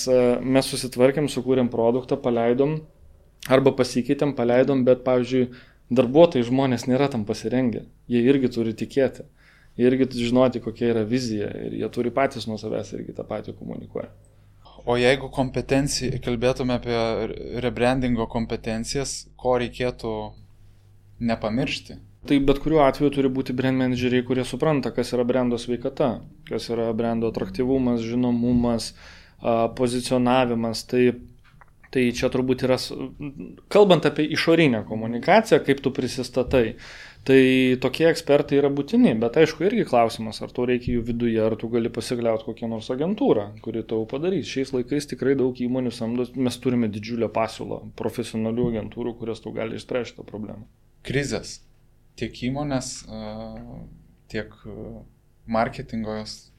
mes susitvarkėm, sukūrėm produktą, paleidom, arba pasikeitėm, paleidom, bet, pavyzdžiui, darbuotojai žmonės nėra tam pasirengę. Jie irgi turi tikėti. Irgi žinoti, kokia yra vizija ir jie turi patys nuo savęs irgi tą patį komunikuoja. O jeigu kalbėtume apie rebrandingo kompetencijas, ko reikėtų nepamiršti? Tai bet kuriuo atveju turi būti brand manageriai, kurie supranta, kas yra brando sveikata, kas yra brando atraktyvumas, žinomumas, pozicionavimas. Tai čia turbūt yra, kalbant apie išorinę komunikaciją, kaip tu prisistatai, tai tokie ekspertai yra būtini, bet aišku irgi klausimas, ar tau reikia jų viduje, ar tu gali pasikliauti kokią nors agentūrą, kuri tau padarys. Šiais laikais tikrai daug įmonių samdo, mes turime didžiulę pasiūlą profesionalių agentūrų, kurios tau gali išspręsti tą problemą. Krizės. Tiek įmonės, tiek marketingos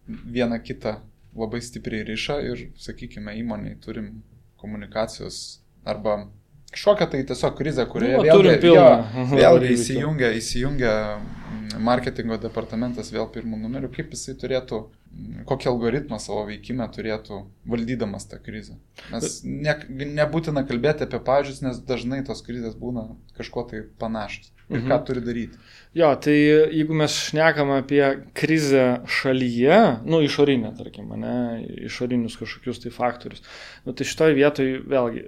viena kitą labai stipriai riša ir, sakykime, įmoniai turim komunikacijos arba kažkokią tai tiesiog krizę, kurioje vėlgi įsijungia marketingo departamentas vėl pirmų numerių, kaip jisai turėtų, kokį algoritmą savo veikimą turėtų valdydamas tą krizę. Nes nebūtina kalbėti apie pavyzdžius, nes dažnai tos krizės būna kažko tai panašios. Ir ką turi daryti? Jo, tai jeigu mes šnekam apie krizę šalyje, išorinę, tarkim, išorinius kažkokius tai faktorius, tai šitoje vietoje vėlgi,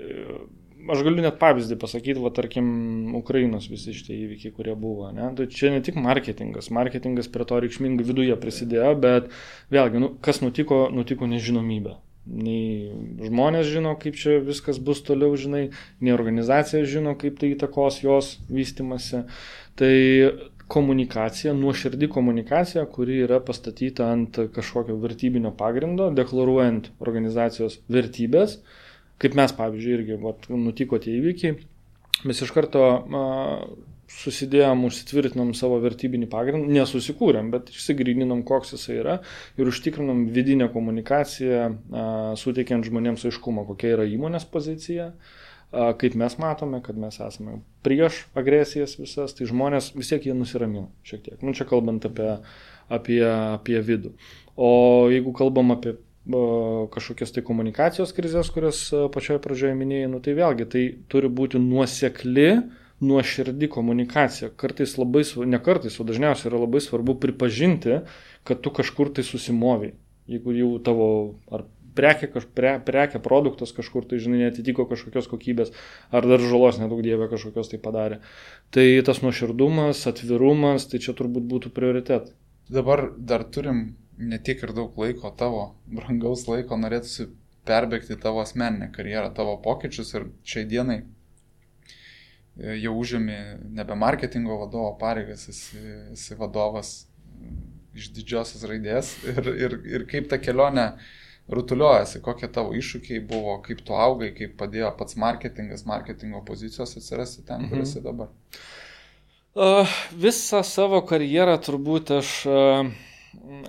aš galiu net pavyzdį pasakyti, tarkim, Ukrainos visi šitie įvykiai, kurie buvo. Tai čia ne tik marketingas prie to reikšmingai viduje prisidėjo, bet vėlgi, kas nutiko nežinomybė. Nei žmonės žino, kaip čia viskas bus toliau, žinai, nei organizacija žino, kaip tai įtakos jos vystymasi. Tai komunikacija, nuoširdi komunikacija, kuri yra pastatyta ant kažkokio vertybinio pagrindo, deklaruojant organizacijos vertybės. Kaip mes, pavyzdžiui, irgi nutiko tie įvykiai, mes iš karto susidėjom, užsitvirtinom savo vertybinį pagrindą, nesusikūrėm, bet išsigryninom, koks jisai yra ir užtikrinom vidinę komunikaciją, suteikiant žmonėms aiškumą, kokia yra įmonės pozicija, kaip mes matome, kad mes esame prieš agresijas visas, tai žmonės vis tiek jie nusiramino šiek tiek. Čia kalbant apie vidų. O jeigu kalbam apie kažkokias tai komunikacijos krizės, kurias pačioje pradžioje minėjai, tai vėlgi tai turi būti nuoširdi komunikacija. Kartais labai, ne kartais, o dažniausiai yra labai svarbu pripažinti, kad tu kažkur tai susimoviai. Jeigu jau tavo ar prekė, produktas kažkur, tai žinai, netitiko kažkokios kokybės, ar dar žalos nedaug dievė kažkokios tai padarė. Tai tas nuoširdumas, atvirumas, tai čia turbūt būtų prioritetai. Dabar dar turim ne tiek ir daug laiko, tavo brangaus laiko, norėtųsi perbėgti tavo asmeninę karjerą, tavo pokyčius ir šiai dienai jau užėmė nebe marketingo vadovo pareigas, esi vadovas iš didžiosios raidės ir kaip ta kelionė rutuliuojasi, kokie tavo iššūkiai buvo, kaip tu augai, kaip padėjo pats marketingo pozicijos atsirasti ten, kur esi dabar. Visą savo karjerą turbūt aš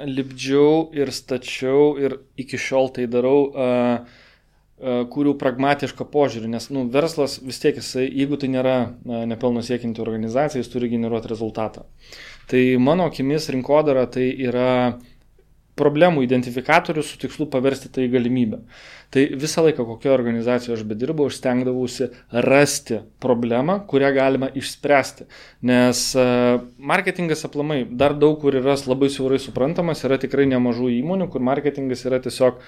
lipdžiau ir stačiau ir iki šiol tai darau, kurių pragmatišką požiūrį, nes verslas vis tiek jisai, jeigu tai nėra nepelno siekianti organizacija, jis turi generuoti rezultatą. Tai mano akimis rinkodara tai yra problemų identifikatorius su tikslu paversti tai galimybę. Tai visą laiką, kokioje organizacijoje aš bedirbau, aš stengdavausi rasti problemą, kurią galima išspręsti. Nes marketingas aplamai dar daug kur yra labai siaurai suprantamas, yra tikrai nemažų įmonių, kur marketingas yra tiesiog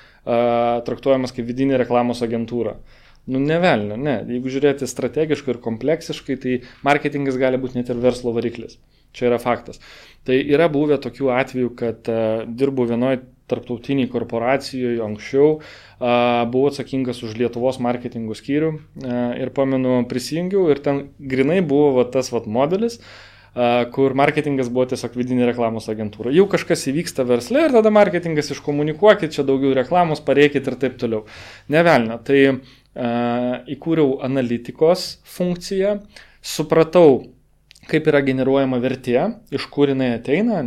traktuojamas kaip vidinė reklamos agentūra. Nevelnio, ne. Jeigu žiūrėti strategiškai ir kompleksiškai, tai marketingas gali būti net ir verslo variklis. Čia yra faktas. Tai yra buvę tokių atvejų, kad dirbu vienoje tarptautiniai korporacijoje anksčiau, buvau atsakingas už Lietuvos marketingų skyrių ir pamenu prisijungiau ir ten grinai buvo tas modelis, kur marketingas buvo tiesiog vidinė reklamos agentūra. Jau kažkas įvyksta versle ir tada marketingas iškomunikuokit, čia daugiau reklamos, pareikit ir taip toliau. Nevelnio. Tai įkūriau analitikos funkciją, supratau, kaip yra generuojama vertė, iš kur jinai ateina,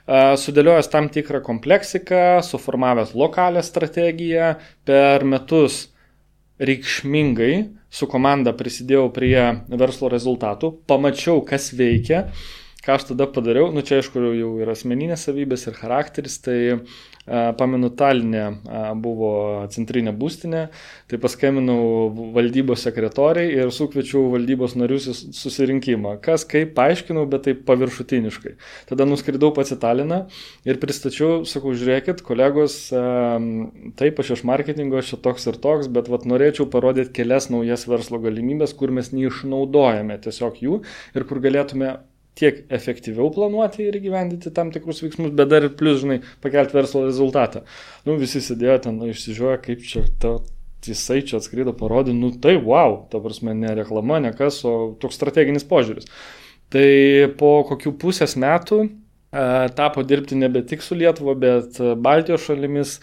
sudėliojęs tam tikrą kompleksiką, suformavęs lokalią strategiją, per metus reikšmingai su komanda prisidėjau prie verslo rezultatų, pamačiau, kas veikia, ką aš tada padariau, čia aišku jau yra asmeninės savybės ir charakteris, tai pamenu Taline buvo centrinė būstinė, tai paskambinau valdybos sekretoriai ir sukviečiau valdybos narius į susirinkimą. Kas kaip paaiškinau, bet taip paviršutiniškai. Tada nuskridau pats į Taliną ir pristačiau, sakau, žiūrėkit, kolegos, taip aš iš marketingo, aš čia toks ir toks, bet norėčiau parodyti kelias naujas verslo galimybės, kur mes neišnaudojame tiesiog jų ir kur galėtume tiek efektyviau planuoti ir įgyvendinti tam tikrus veiksmus, bet dar ir plus, pakelti verslo rezultatą. Visi sėdėjo ten, išsižiūrėjo, kaip čia jisai čia atskrido, parodė, tai wow, ta prasme, ne reklama, ne kas, o toks strateginis požiūris. Tai po kokių pusės metų tapo dirbti nebe tik su Lietuva, bet Baltijos šalimis,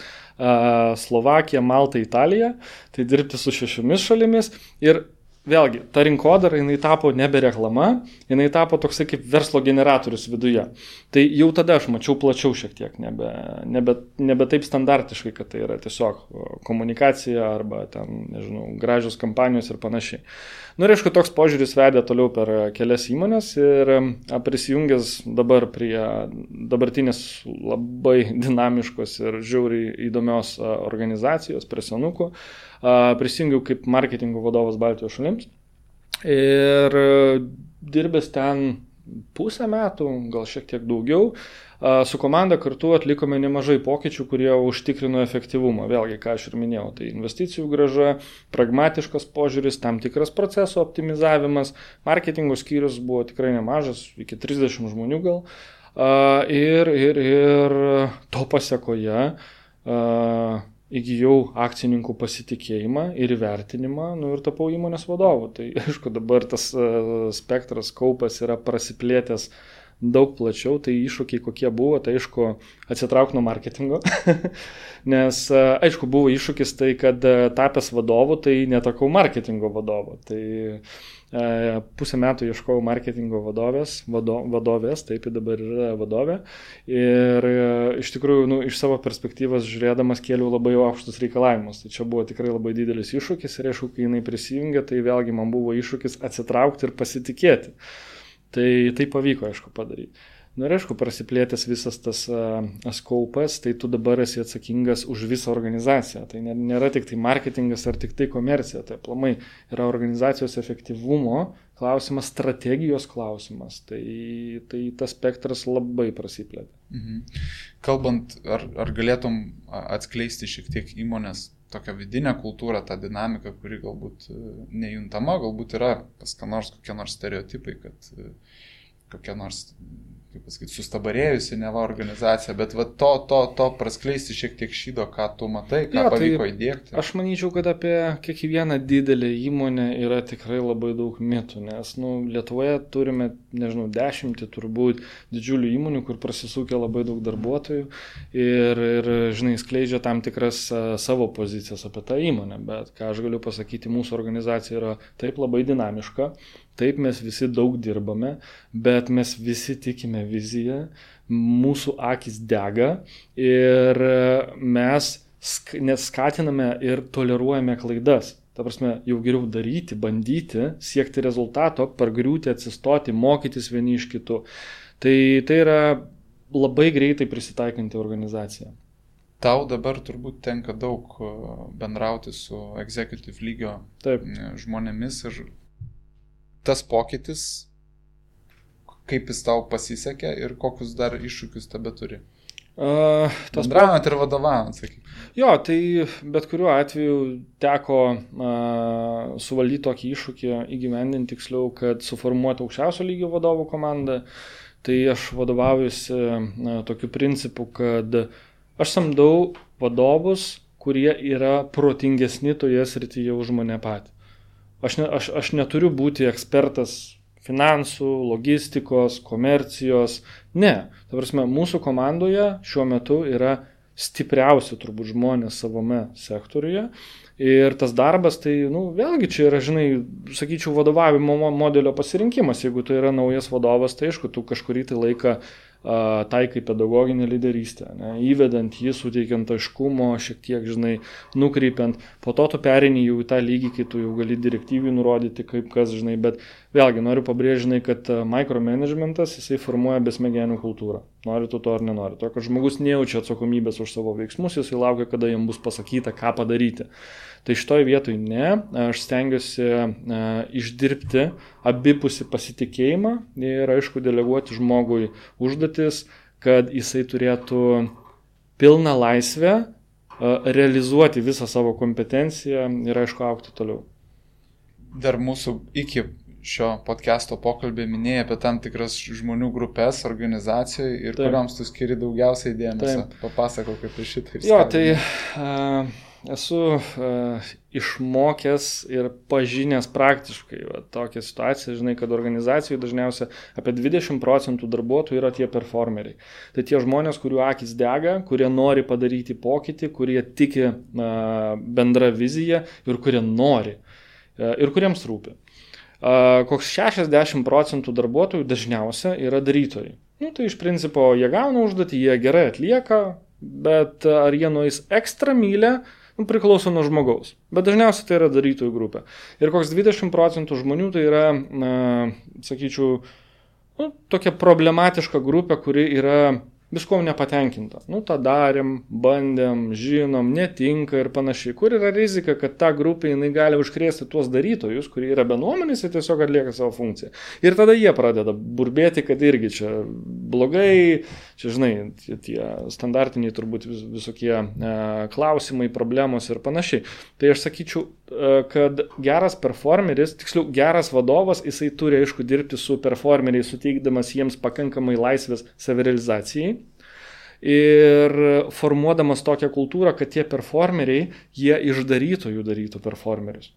Slovakija, Malta, Italija, tai dirbti su 6 šalimis ir vėlgi, ta rinkodara, jinai tapo nebe reklama, jinai tapo toksai kaip verslo generatorius viduje. Tai jau tada aš mačiau plačiau šiek tiek, nebe taip standartiškai, kad tai yra tiesiog komunikacija arba ten, gražios kampanijos ir panašiai. Ir aišku, toks požiūris vedė toliau per kelias įmonės ir prisijungęs dabar prie dabartinės labai dinamiškos ir žiauriai įdomios organizacijos, prie Senukų, prisijungiau kaip marketingo vadovas Baltijos šalims ir dirbęs ten pusę metų, gal šiek tiek daugiau, su komanda kartu atlikome nemažai pokyčių, kurie užtikrino efektyvumą. Vėlgi, ką aš ir minėjau, tai investicijų grąža, pragmatiškas požiūris, tam tikras proceso optimizavimas, marketingo skyrius buvo tikrai nemažas, iki 30 žmonių gal, ir to pasekoje įgijau akcininkų pasitikėjimą ir įvertinimą, ir tapau įmonės vadovu. Tai aišku, dabar tas spektras, kaupas yra prasiplėtęs daug plačiau, tai iššūkiai kokie buvo, tai aišku, atsitrauk nuo marketingo, nes aišku, buvo iššūkis tai, kad tapęs vadovu, tai netakau marketingo vadovu. Tai pusę metų ieškojau marketingo vadovės, taip dabar yra vadovė. Ir iš tikrųjų, iš savo perspektyvos žiūrėdamas kėliau labai aukštus reikalavimus. Tai čia buvo tikrai labai didelis iššūkis ir aišku, kai jinai prisijungė, tai vėlgi man buvo iššūkis atsitraukti ir pasitikėti. Tai pavyko, aišku, padaryti. Ir aišku, prasiplėtęs visas tas skaupas, tai tu dabar esi atsakingas už visą organizaciją. Tai nėra tik tai marketingas ar tik tai komercija. Tai aplamai yra organizacijos efektyvumo klausimas, strategijos klausimas. Tai tas spektras labai prasiplėtė. Kalbant, ar galėtum atskleisti šiek tiek įmonės tokią vidinę kultūrą, tą dinamiką, kuri galbūt nejuntama, galbūt yra pas ką nors kokie nors stereotipai, kad kokia nors, kaip pasakyti, sustabarėjusi neva organizacija, bet va to praskleisti šiek tiek šydo, ką tu matai, ką pavyko įdiegti. Aš manyčiau, kad apie kiekvieną didelę įmonę yra tikrai labai daug mitų, nes Lietuvoje turime, 10 turbūt didžiulių įmonių, kur prasisukia labai daug darbuotojų ir skleidžia tam tikras savo pozicijas apie tą įmonę, bet ką aš galiu pasakyti, mūsų organizacija yra taip labai dinamiška. Taip, mes visi daug dirbame, bet mes visi tikime viziją, mūsų akis dega ir mes neskatiname ir toleruojame klaidas. Ta prasme, jau geriau daryti, bandyti, siekti rezultato, pargriūti, atsistoti, mokytis vieni iš kitų. Tai yra labai greitai prisitaikanti organizacija. Tau dabar turbūt tenka daug bendrauti su executive lygio žmonėmis ir tas pokytis, kaip jis tau pasisekė ir kokius dar iššūkius tebe turi? Bendravant ir vadovaujant, sakyk. Jo, tai bet kuriuo atveju teko suvaldyti tokį iššūkį, įgyvendinti tiksliau, kad suformuoti aukščiausio lygio vadovų komandą. Tai aš vadovaujuosi tokiu principu, kad aš samdau vadovus, kurie yra protingesni toje srityje už mane patį. Aš neturiu būti ekspertas finansų, logistikos, komercijos. Ne. Ta prasme, mūsų komandoje šiuo metu yra stipriausi turbūt žmonės savame sektoriuje. Ir tas darbas, tai, vėlgi čia yra, sakyčiau, vadovavimo modelio pasirinkimas. Jeigu tai yra naujas vadovas, tai aišku, tu kažkurį tai laiką taikai pedagoginę lyderystę, įvedant jį, suteikiant aiškumo, šiek tiek, nukreipiant. Po to tu perini jau į tą lygį, kai tu jau gali direktyviai nurodyti, kaip kas, bet vėlgi noriu pabrėžti, kad micromanagementas, jisai formuoja besmegenių kultūrą. Nori tu to ar nenori. To, kad žmogus nejaučia atsakomybės už savo veiksmus, jisai laukia, kada jam bus pasakyta, ką padaryti. Tai šitoj vietoj ne, aš stengiuosi išdirbti abipusį pasitikėjimą ir, aišku, deleguoti žmogui užduotis, kad jisai turėtų pilną laisvę realizuoti visą savo kompetenciją ir, aišku, augti toliau. Dar mūsų iki šio podcast'o pokalbį minėjai apie tam tikras žmonių grupės organizacijoje ir kuriams tu skiri daugiausiai dėmesio. Papasakok apie šitą. Jo, tai esu išmokęs ir pažinęs praktiškai tokią situaciją, kad organizacijų dažniausiai apie 20% darbuotojų yra tie performeriai. Tai tie žmonės, kurių akis dega, kurie nori padaryti pokytį, kurie tiki bendrą viziją ir kurie nori ir kuriems rūpi. Koks 60% darbuotojų dažniausiai yra darytojai. Tai iš principo jie gauna užduotį, jie gerai atlieka, bet ar jie nueis ekstra mylę, priklauso nuo žmogaus. Bet dažniausiai tai yra darytojų grupė. Ir koks 20% žmonių tai yra, sakyčiau, tokia problematiška grupė, kuri yra viskuom nepatenkinta. Tą darėm, bandėm, žinom, netinka ir panašiai. Kur yra rizika, kad ta grupė jinai gali užkrėsti tuos darytojus, kurie yra bendruomenės ir tiesiog atlieka savo funkciją. Ir tada jie pradeda burbėti, kad irgi čia blogai, čia, tie standartiniai turbūt visokie klausimai, problemos ir panašiai. Tai aš sakyčiau, kad geras performeris, tiksliau geras vadovas, jisai turi, aišku, dirbti su performeriais, suteikdamas jiems pakankamai laisvės savirealizacijai. Ir formuodamas tokią kultūrą, kad tie performeriai, jie iš darytojų darytų performerius.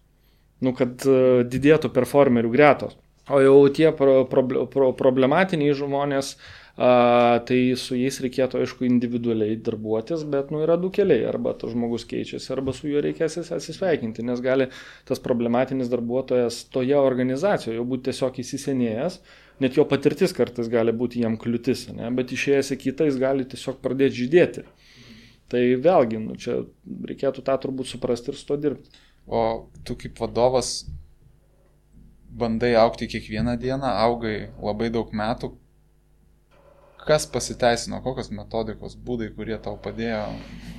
Kad didėtų performerių gretos. O jau tie problematiniai žmonės, tai su jais reikėtų, aišku, individualiai darbuotis, bet yra du keliai. Arba tas žmogus keičiasi, arba su juo reikės atsisveikinti, nes gali tas problematinis darbuotojas toje organizacijoje jau būti tiesiog įsisenėjęs. Net jo patirtis kartais gali būti jam kliūtis, bet išėjęs į kitą jis gali tiesiog pradėti žydėti. Tai vėlgi, čia reikėtų tą turbūt suprasti ir su to dirbti. O tu kaip vadovas bandai augti kiekvieną dieną, augai labai daug metų. Kas pasiteisino, kokios metodikos, būdai, kurie tau padėjo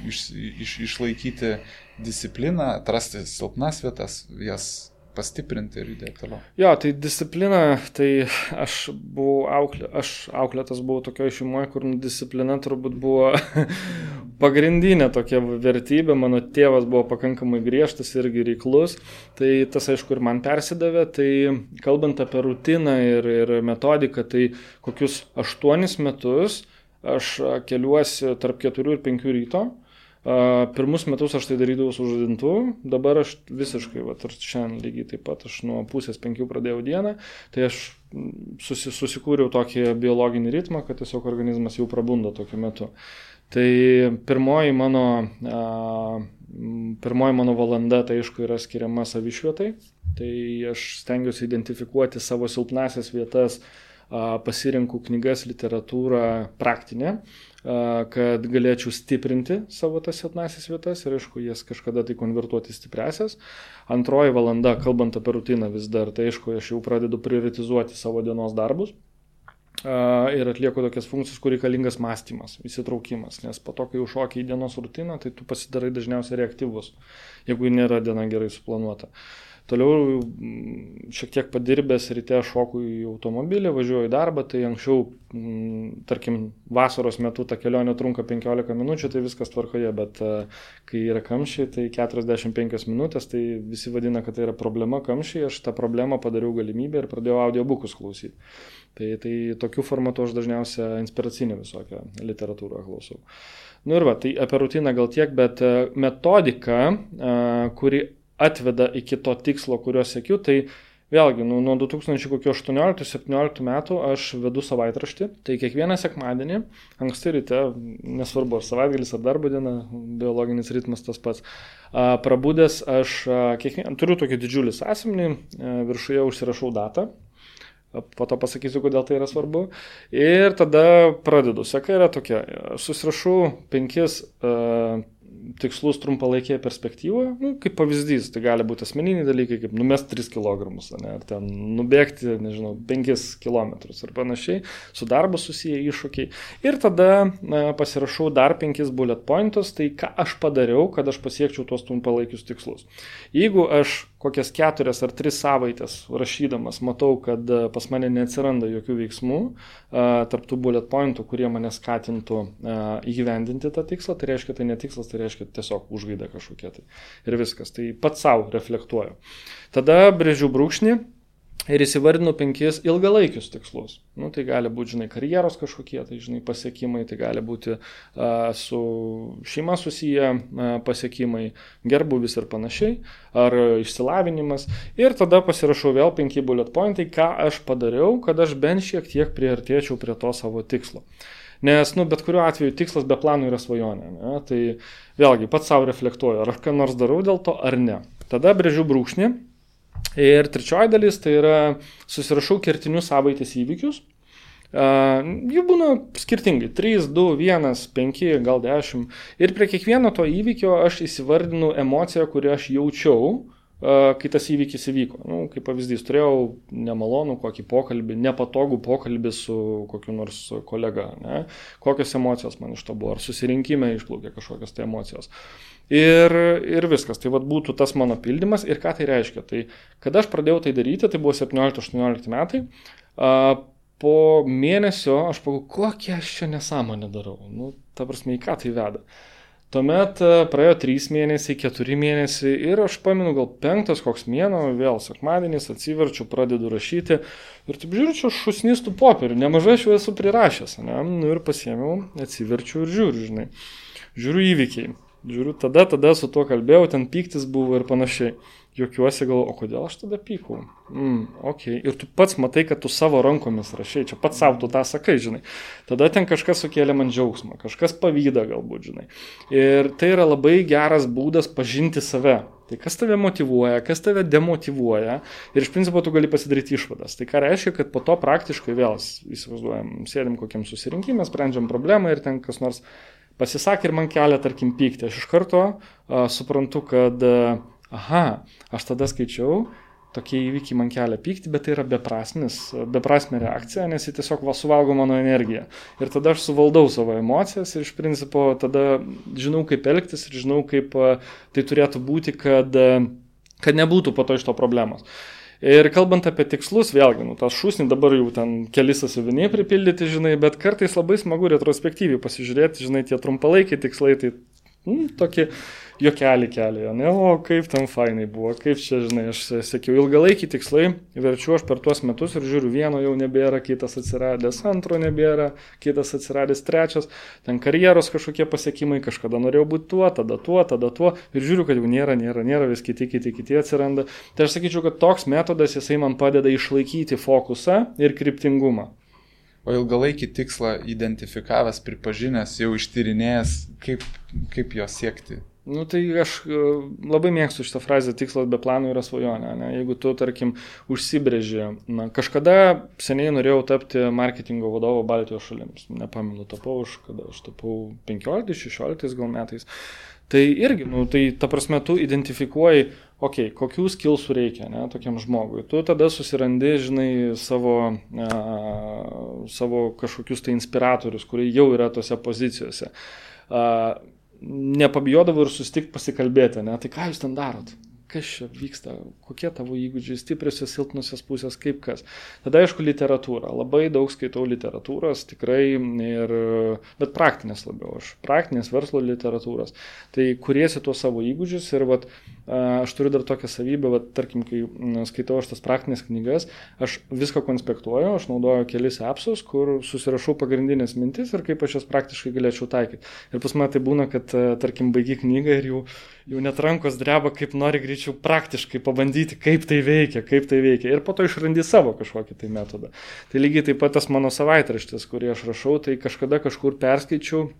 išlaikyti discipliną, atrasti silpnas vietas, jas pastiprinti ir judėti toliau. Jo, tai disciplina, tai aš auklėtas buvau tokioje šeimoje, kur disciplina turbūt buvo pagrindinė tokia vertybė. Mano tėvas buvo pakankamai griežtas irgi reiklus, tai tas aišku ir man persidavė. Tai kalbant apie rutiną ir metodiką, tai kokius 8 metus aš keliuosi tarp 4 ir 5 ryto. Pirmus metus aš tai darydavau su žadintuvu, dabar aš visiškai, ir šiandien lygiai taip pat, aš nuo 4:30 pradėjau dieną, tai aš susikūriau tokį biologinį ritmą, kad tiesiog organizmas jau prabundo tokiu metu. Tai pirmoji mano valanda, tai aišku, yra skiriama savišvietai, tai aš stengiuosi identifikuoti savo silpnasias vietas, pasirinku knygas, literatūrą praktinę, kad galėčiau stiprinti savo tas silpnasias vietas ir, aišku, jas kažkada tai konvertuoti stipresias. Antroji valanda, kalbant apie rutiną vis dar, tai, aišku, aš jau pradedu prioritizuoti savo dienos darbus ir atlieku tokias funkcijas, kur reikalingas mąstymas, įsitraukimas, nes po to, kai užšoki į dienos rutiną, tai tu pasidarai dažniausiai reaktyvus, jeigu nėra diena gerai suplanuota. Toliau šiek tiek padirbęs ryte šoku į automobilį, važiuoju į darbą, tai anksčiau, tarkim, vasaros metu ta kelionė trunka 15 minučių, tai viskas tvarkoje, bet kai yra kamščiai, tai 45 minutės, tai visi vadina, kad tai yra problema kamščiai, aš tą problemą padariau galimybę ir pradėjau audiobukus klausyti. Tai tokiu formatu aš dažniausiai inspiracinę visokią literatūrą klausau. Ir tai apie rutiną gal tiek, bet metodika, kuri atveda iki to tikslo, kurio siekiu, tai vėlgi, nuo 2018-2017 metų aš vedu savaitraštį, tai kiekvieną sekmadienį, anksti ryte, nesvarbu, ar savaitgalis, ar darbo diena, biologinis ritmas tas pats, prabudęs aš turiu tokį didžiulį sąsiuvinį, viršuje užsirašau datą, po to pasakysiu, kodėl tai yra svarbu, ir tada pradedu. Seka yra tokia, susirašau 5 tikslus trumpalaikėje perspektyvoje, kaip pavyzdys, tai gali būti asmeniniai dalykai, kaip numesti 3 kg, ar ten nubėgti, 5 km ir panašiai, su darbu susiję iššūkiai. Ir tada pasirašau dar 5 bullet pointus, tai ką aš padariau, kad aš pasiekčiau tuos trumpalaikius tikslus. Jeigu aš kokias 4 ar 3 savaitės rašydamas matau, kad pas mane neatsiranda jokių veiksmų tarp tų bullet pointų, kurie mane skatintų įgyvendinti tą tikslą, tai reiškia, tai ne tikslas, tai reiškia tiesiog užgaida kažkokia tai. Ir viskas. Tai pats savo reflektuoju. Tada brėžiu brūkšnį ir įsivardinu 5 ilgalaikius tikslus. Tai gali būti, karjeros kažkokie, tai, pasiekimai, tai gali būti su šeima susiję pasiekimai, gerbuvis ir panašiai, ar išsilavinimas. Ir tada pasirašau vėl 5 bullet pointai, ką aš padariau, kad aš bent šiek tiek priartėčiau prie to savo tikslo. Nes, bet kuriuo atveju tikslas be planų yra svajonė. Ne? Tai vėlgi, pats savo reflektuoju, ar aš ką nors darau dėl to, ar ne. Tada brėžiu brūkšnį. Ir trečioji dalis, tai yra susirašau kertinius savaitės įvykius. Jų būna skirtingai. 3, 2, 1, 5, gal 10. Ir prie kiekvieno to įvykio aš įsivardinu emociją, kurią aš jaučiau, kai tas įvykis įvyko. Kaip pavyzdys, turėjau nemalonų kokį pokalbį, nepatogų pokalbį su kokiu nors kolega. Ne? Kokios emocijos man iš to buvo, ar susirinkime išplaukė kažkokios tai emocijos. Ir viskas, tai būtų tas mano pildymas. Ir ką tai reiškia? Tai kada aš pradėjau tai daryti, tai buvo 17-18 metai, po mėnesio aš pagalvojau, kokią aš čia nesąmonę darau. Ta prasme, į ką tai veda. Tuomet praėjo 3 mėnesiai, 4 mėnesiai ir aš pamenu gal 5 koks mėnuo, vėl sekmadienis, atsiverčiu, pradedu rašyti ir taip žiūriu, čia šusnistų popierių, nemažai aš jau esu prirašęs, ne? Ir pasiėmiau, atsiverčiu ir žiūriu, žiūriu įvykiai, žiūriu, tada su tuo kalbėjau, ten pyktis buvo ir panašiai. Juokiuosi, galvoju, o kodėl aš tada pykau? Okay. Ir tu pats matai, kad tu savo rankomis rašai, čia pats savo tu tą sakai, Tada ten kažkas sukėlė man džiaugsmą, kažkas pavydą galbūt, Ir tai yra labai geras būdas pažinti save. Tai kas tave motyvuoja, kas tave demotyvuoja ir iš principo tu gali pasidaryti išvadas. Tai ką reiškia, kad po to praktiškai vėl įsivaizduojam, sėdim kokiam susirinkime, sprendžiam problemą ir ten kas nors pasisakė ir man kelia, tarkim, pykti. Aš iš karto suprantu, kad aš tada skaičiau, tokie įvykiai man kelia pykti, bet tai yra beprasmė reakcija, nes jis tiesiog suvalgo mano energiją. Ir tada aš suvaldau savo emocijas ir iš principo tada žinau, kaip elgtis ir žinau, kaip tai turėtų būti, kad kad nebūtų po to iš to problemos. Ir kalbant apie tikslus, vėlgi, tas šūsnį dabar jau ten keli sąsiuviniai pripildyti, žinai, bet kartais labai smagu retrospektyviai pasižiūrėti, žinai, tie trumpalaikiai tikslai, tai tokie juokelį kelia, ne, o kaip ten fainai buvo, kaip čia, žinai, aš sakiau, ilgalaikiai tikslai, verčiu aš per tuos metus ir žiūriu, vieno jau nebėra, kitas atsiradęs, antro nebėra, kitas atsiradęs, trečias, ten karjeros kažkokie pasiekimai, kažkada norėjau būti tuo, tada tuo, ir žiūriu, kad jau nėra, vis kiti atsiranda. Tai aš sakyčiau, kad toks metodas, jisai man padeda išlaikyti fokusą ir kryptingumą. O ilgalaikį tikslą identifikavęs, pripažinęs, jau ištyrinėjęs, kaip jo siekti? Tai aš labai mėgstu šitą frazę, tikslas be plano yra svajonė. Ne? Jeigu tu, tarkim, užsibrėži, kažkada seniai norėjau tapti marketingo vadovo Baltijos šalims. Nepamenu, kada aš tapau 15-16 gal metais. Tai irgi, tai ta prasme, tu identifikuoji, kokių skillsų reikia, ne, tokiam žmogui. Tu tada susirandi, žinai, savo kažkokius tai inspiratorius, kurie jau yra tose pozicijose. Nepabijodavau ir susitikti pasikalbėti, ne? Tai ką jūs ten darot? Kas čia vyksta? Kokie tavo įgūdžiai, stipriosios, silpnusios pusės, kaip kas? Tada, aišku, literatūra. Labai daug skaitau literatūros, tikrai, bet praktinės labiau. Praktinės verslo literatūros. Tai kuriesi tuos savo įgūdžius ir aš turiu dar tokią savybę, tarkim, kai skaitau aš tas praktinės knygas, aš viską konspektuoju, aš naudoju kelis appsus, kur susirašau pagrindinės mintis ir kaip aš jas praktiškai galėčiau taikyti. Ir pas mane tai būna, kad, tarkim, baigi knygą ir jau net rankos dreba, kaip nori greičiau praktiškai pabandyti, kaip tai veikia. Ir po to išrandi savo kažkokį tai metodą. Tai lygiai taip pat tas mano savaitraštis, kurį aš rašau, tai kažkada kažkur perskaičiau,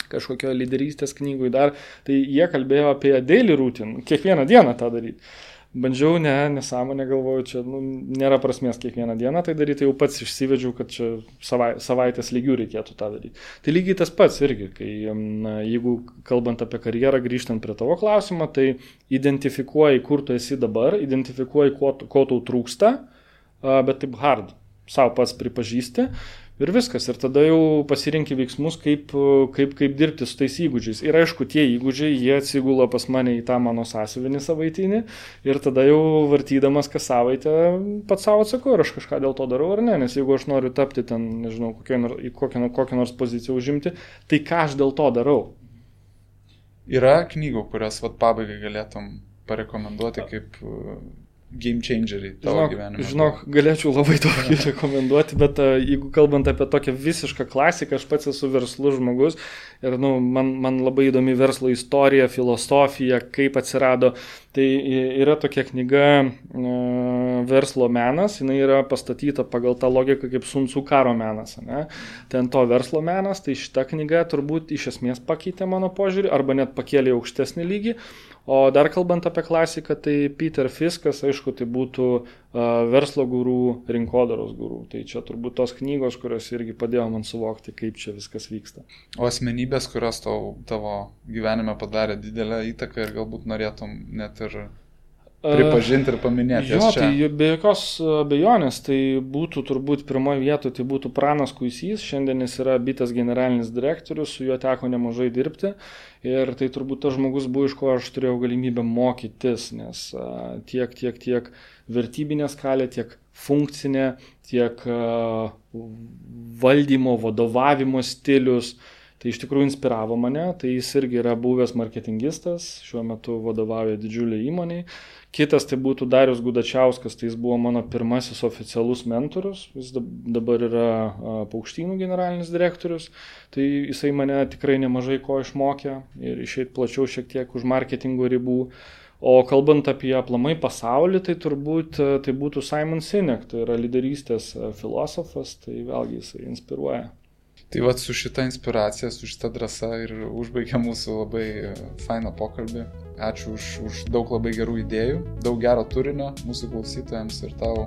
kažkokio lyderystės knygui dar, tai jie kalbėjo apie daily routine, kiekvieną dieną tą daryti. Bandžiau, nesąmonę galvoju, čia nėra prasmės kiekvieną dieną tai daryti, jau pats išsivedžiau, kad čia savaitės lygių reikėtų tą daryti. Tai lygiai tas pats irgi, kai jeigu kalbant apie karjerą, grįžtant prie tavo klausimą, tai identifikuoji, kur tu esi dabar, identifikuoji, ko tau trūksta, bet taip hard, savo pats pripažįsti. Ir viskas. Ir tada jau pasirinki veiksmus, kaip dirbti su tais įgūdžiais. Ir aišku, tie įgūdžiai, jie atsigula pas mane į tą mano sąsiuvinį savaitinį. Ir tada jau vartydamas kas savaitę pats savo atsakau, ar aš kažką dėl to darau ar ne. Nes jeigu aš noriu tapti ten, nežinau, kokią nors poziciją užimti, tai ką aš dėl to darau? Yra knygų, kurias pabaigai galėtum parekomenduoti kaip game changeriai tavo gyvenime? Žinok, galėčiau labai daug rekomenduoti, bet jeigu kalbant apie tokią visišką klasiką, aš pats esu verslus žmogus ir man labai įdomi verslo istorija, filosofija, kaip atsirado. Tai yra tokia knyga Verslo menas, jinai yra pastatyta pagal tą logiką kaip Sun Tzu karo menas. Ne? Ten to verslo menas, tai šita knyga turbūt iš esmės pakeitė mano požiūrį arba net pakėlė aukštesnį lygį. O dar kalbant apie klasiką, tai Peter Fiskas, aišku, tai būtų verslo gurų, rinkodaros gurų. Tai čia turbūt tos knygos, kurios irgi padėjo man suvokti, kaip čia viskas vyksta. O asmenybės, kurios tavo gyvenime padarė didelę įtaką ir galbūt norėtum net ir pripažinti ir paminėti. Jo, tai be jokios abejonės, tai būtų turbūt pirmoje vietoje, tai būtų Pranas Kuisys, šiandien jis yra Bitės generalinis direktorius, su juo teko nemažai dirbti ir tai turbūt tas žmogus buvo, iš ko aš turėjau galimybę mokytis, nes tiek vertybinė skalė, tiek funkcinė, tiek valdymo, vadovavimo stilius. Tai iš tikrųjų inspiravo mane, tai jis irgi yra buvęs marketingistas, šiuo metu vadovauja didžiuliai įmoniai. Kitas tai būtų Darius Gudačiauskas, tai jis buvo mano pirmasis oficialus mentorius, jis dabar yra Paukštynų generalinis direktorius, tai jisai mane tikrai nemažai ko išmokė ir išeit plačiau šiek tiek už marketingo ribų. O kalbant apie aplamai pasaulį, tai turbūt tai būtų Simon Sinek, tai yra lyderystės filosofas, tai vėlgi jisai inspiruoja. Tai su šita inspiracija, su šita drąsa ir užbaigia mūsų labai fainą pokalbį. Ačiū už daug labai gerų idėjų, daug gero turinio mūsų klausytojams ir tau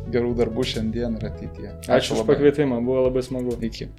gerų darbų šiandien ir ateityje. Ačiū už pakvietimą, buvo labai smagu. Iki.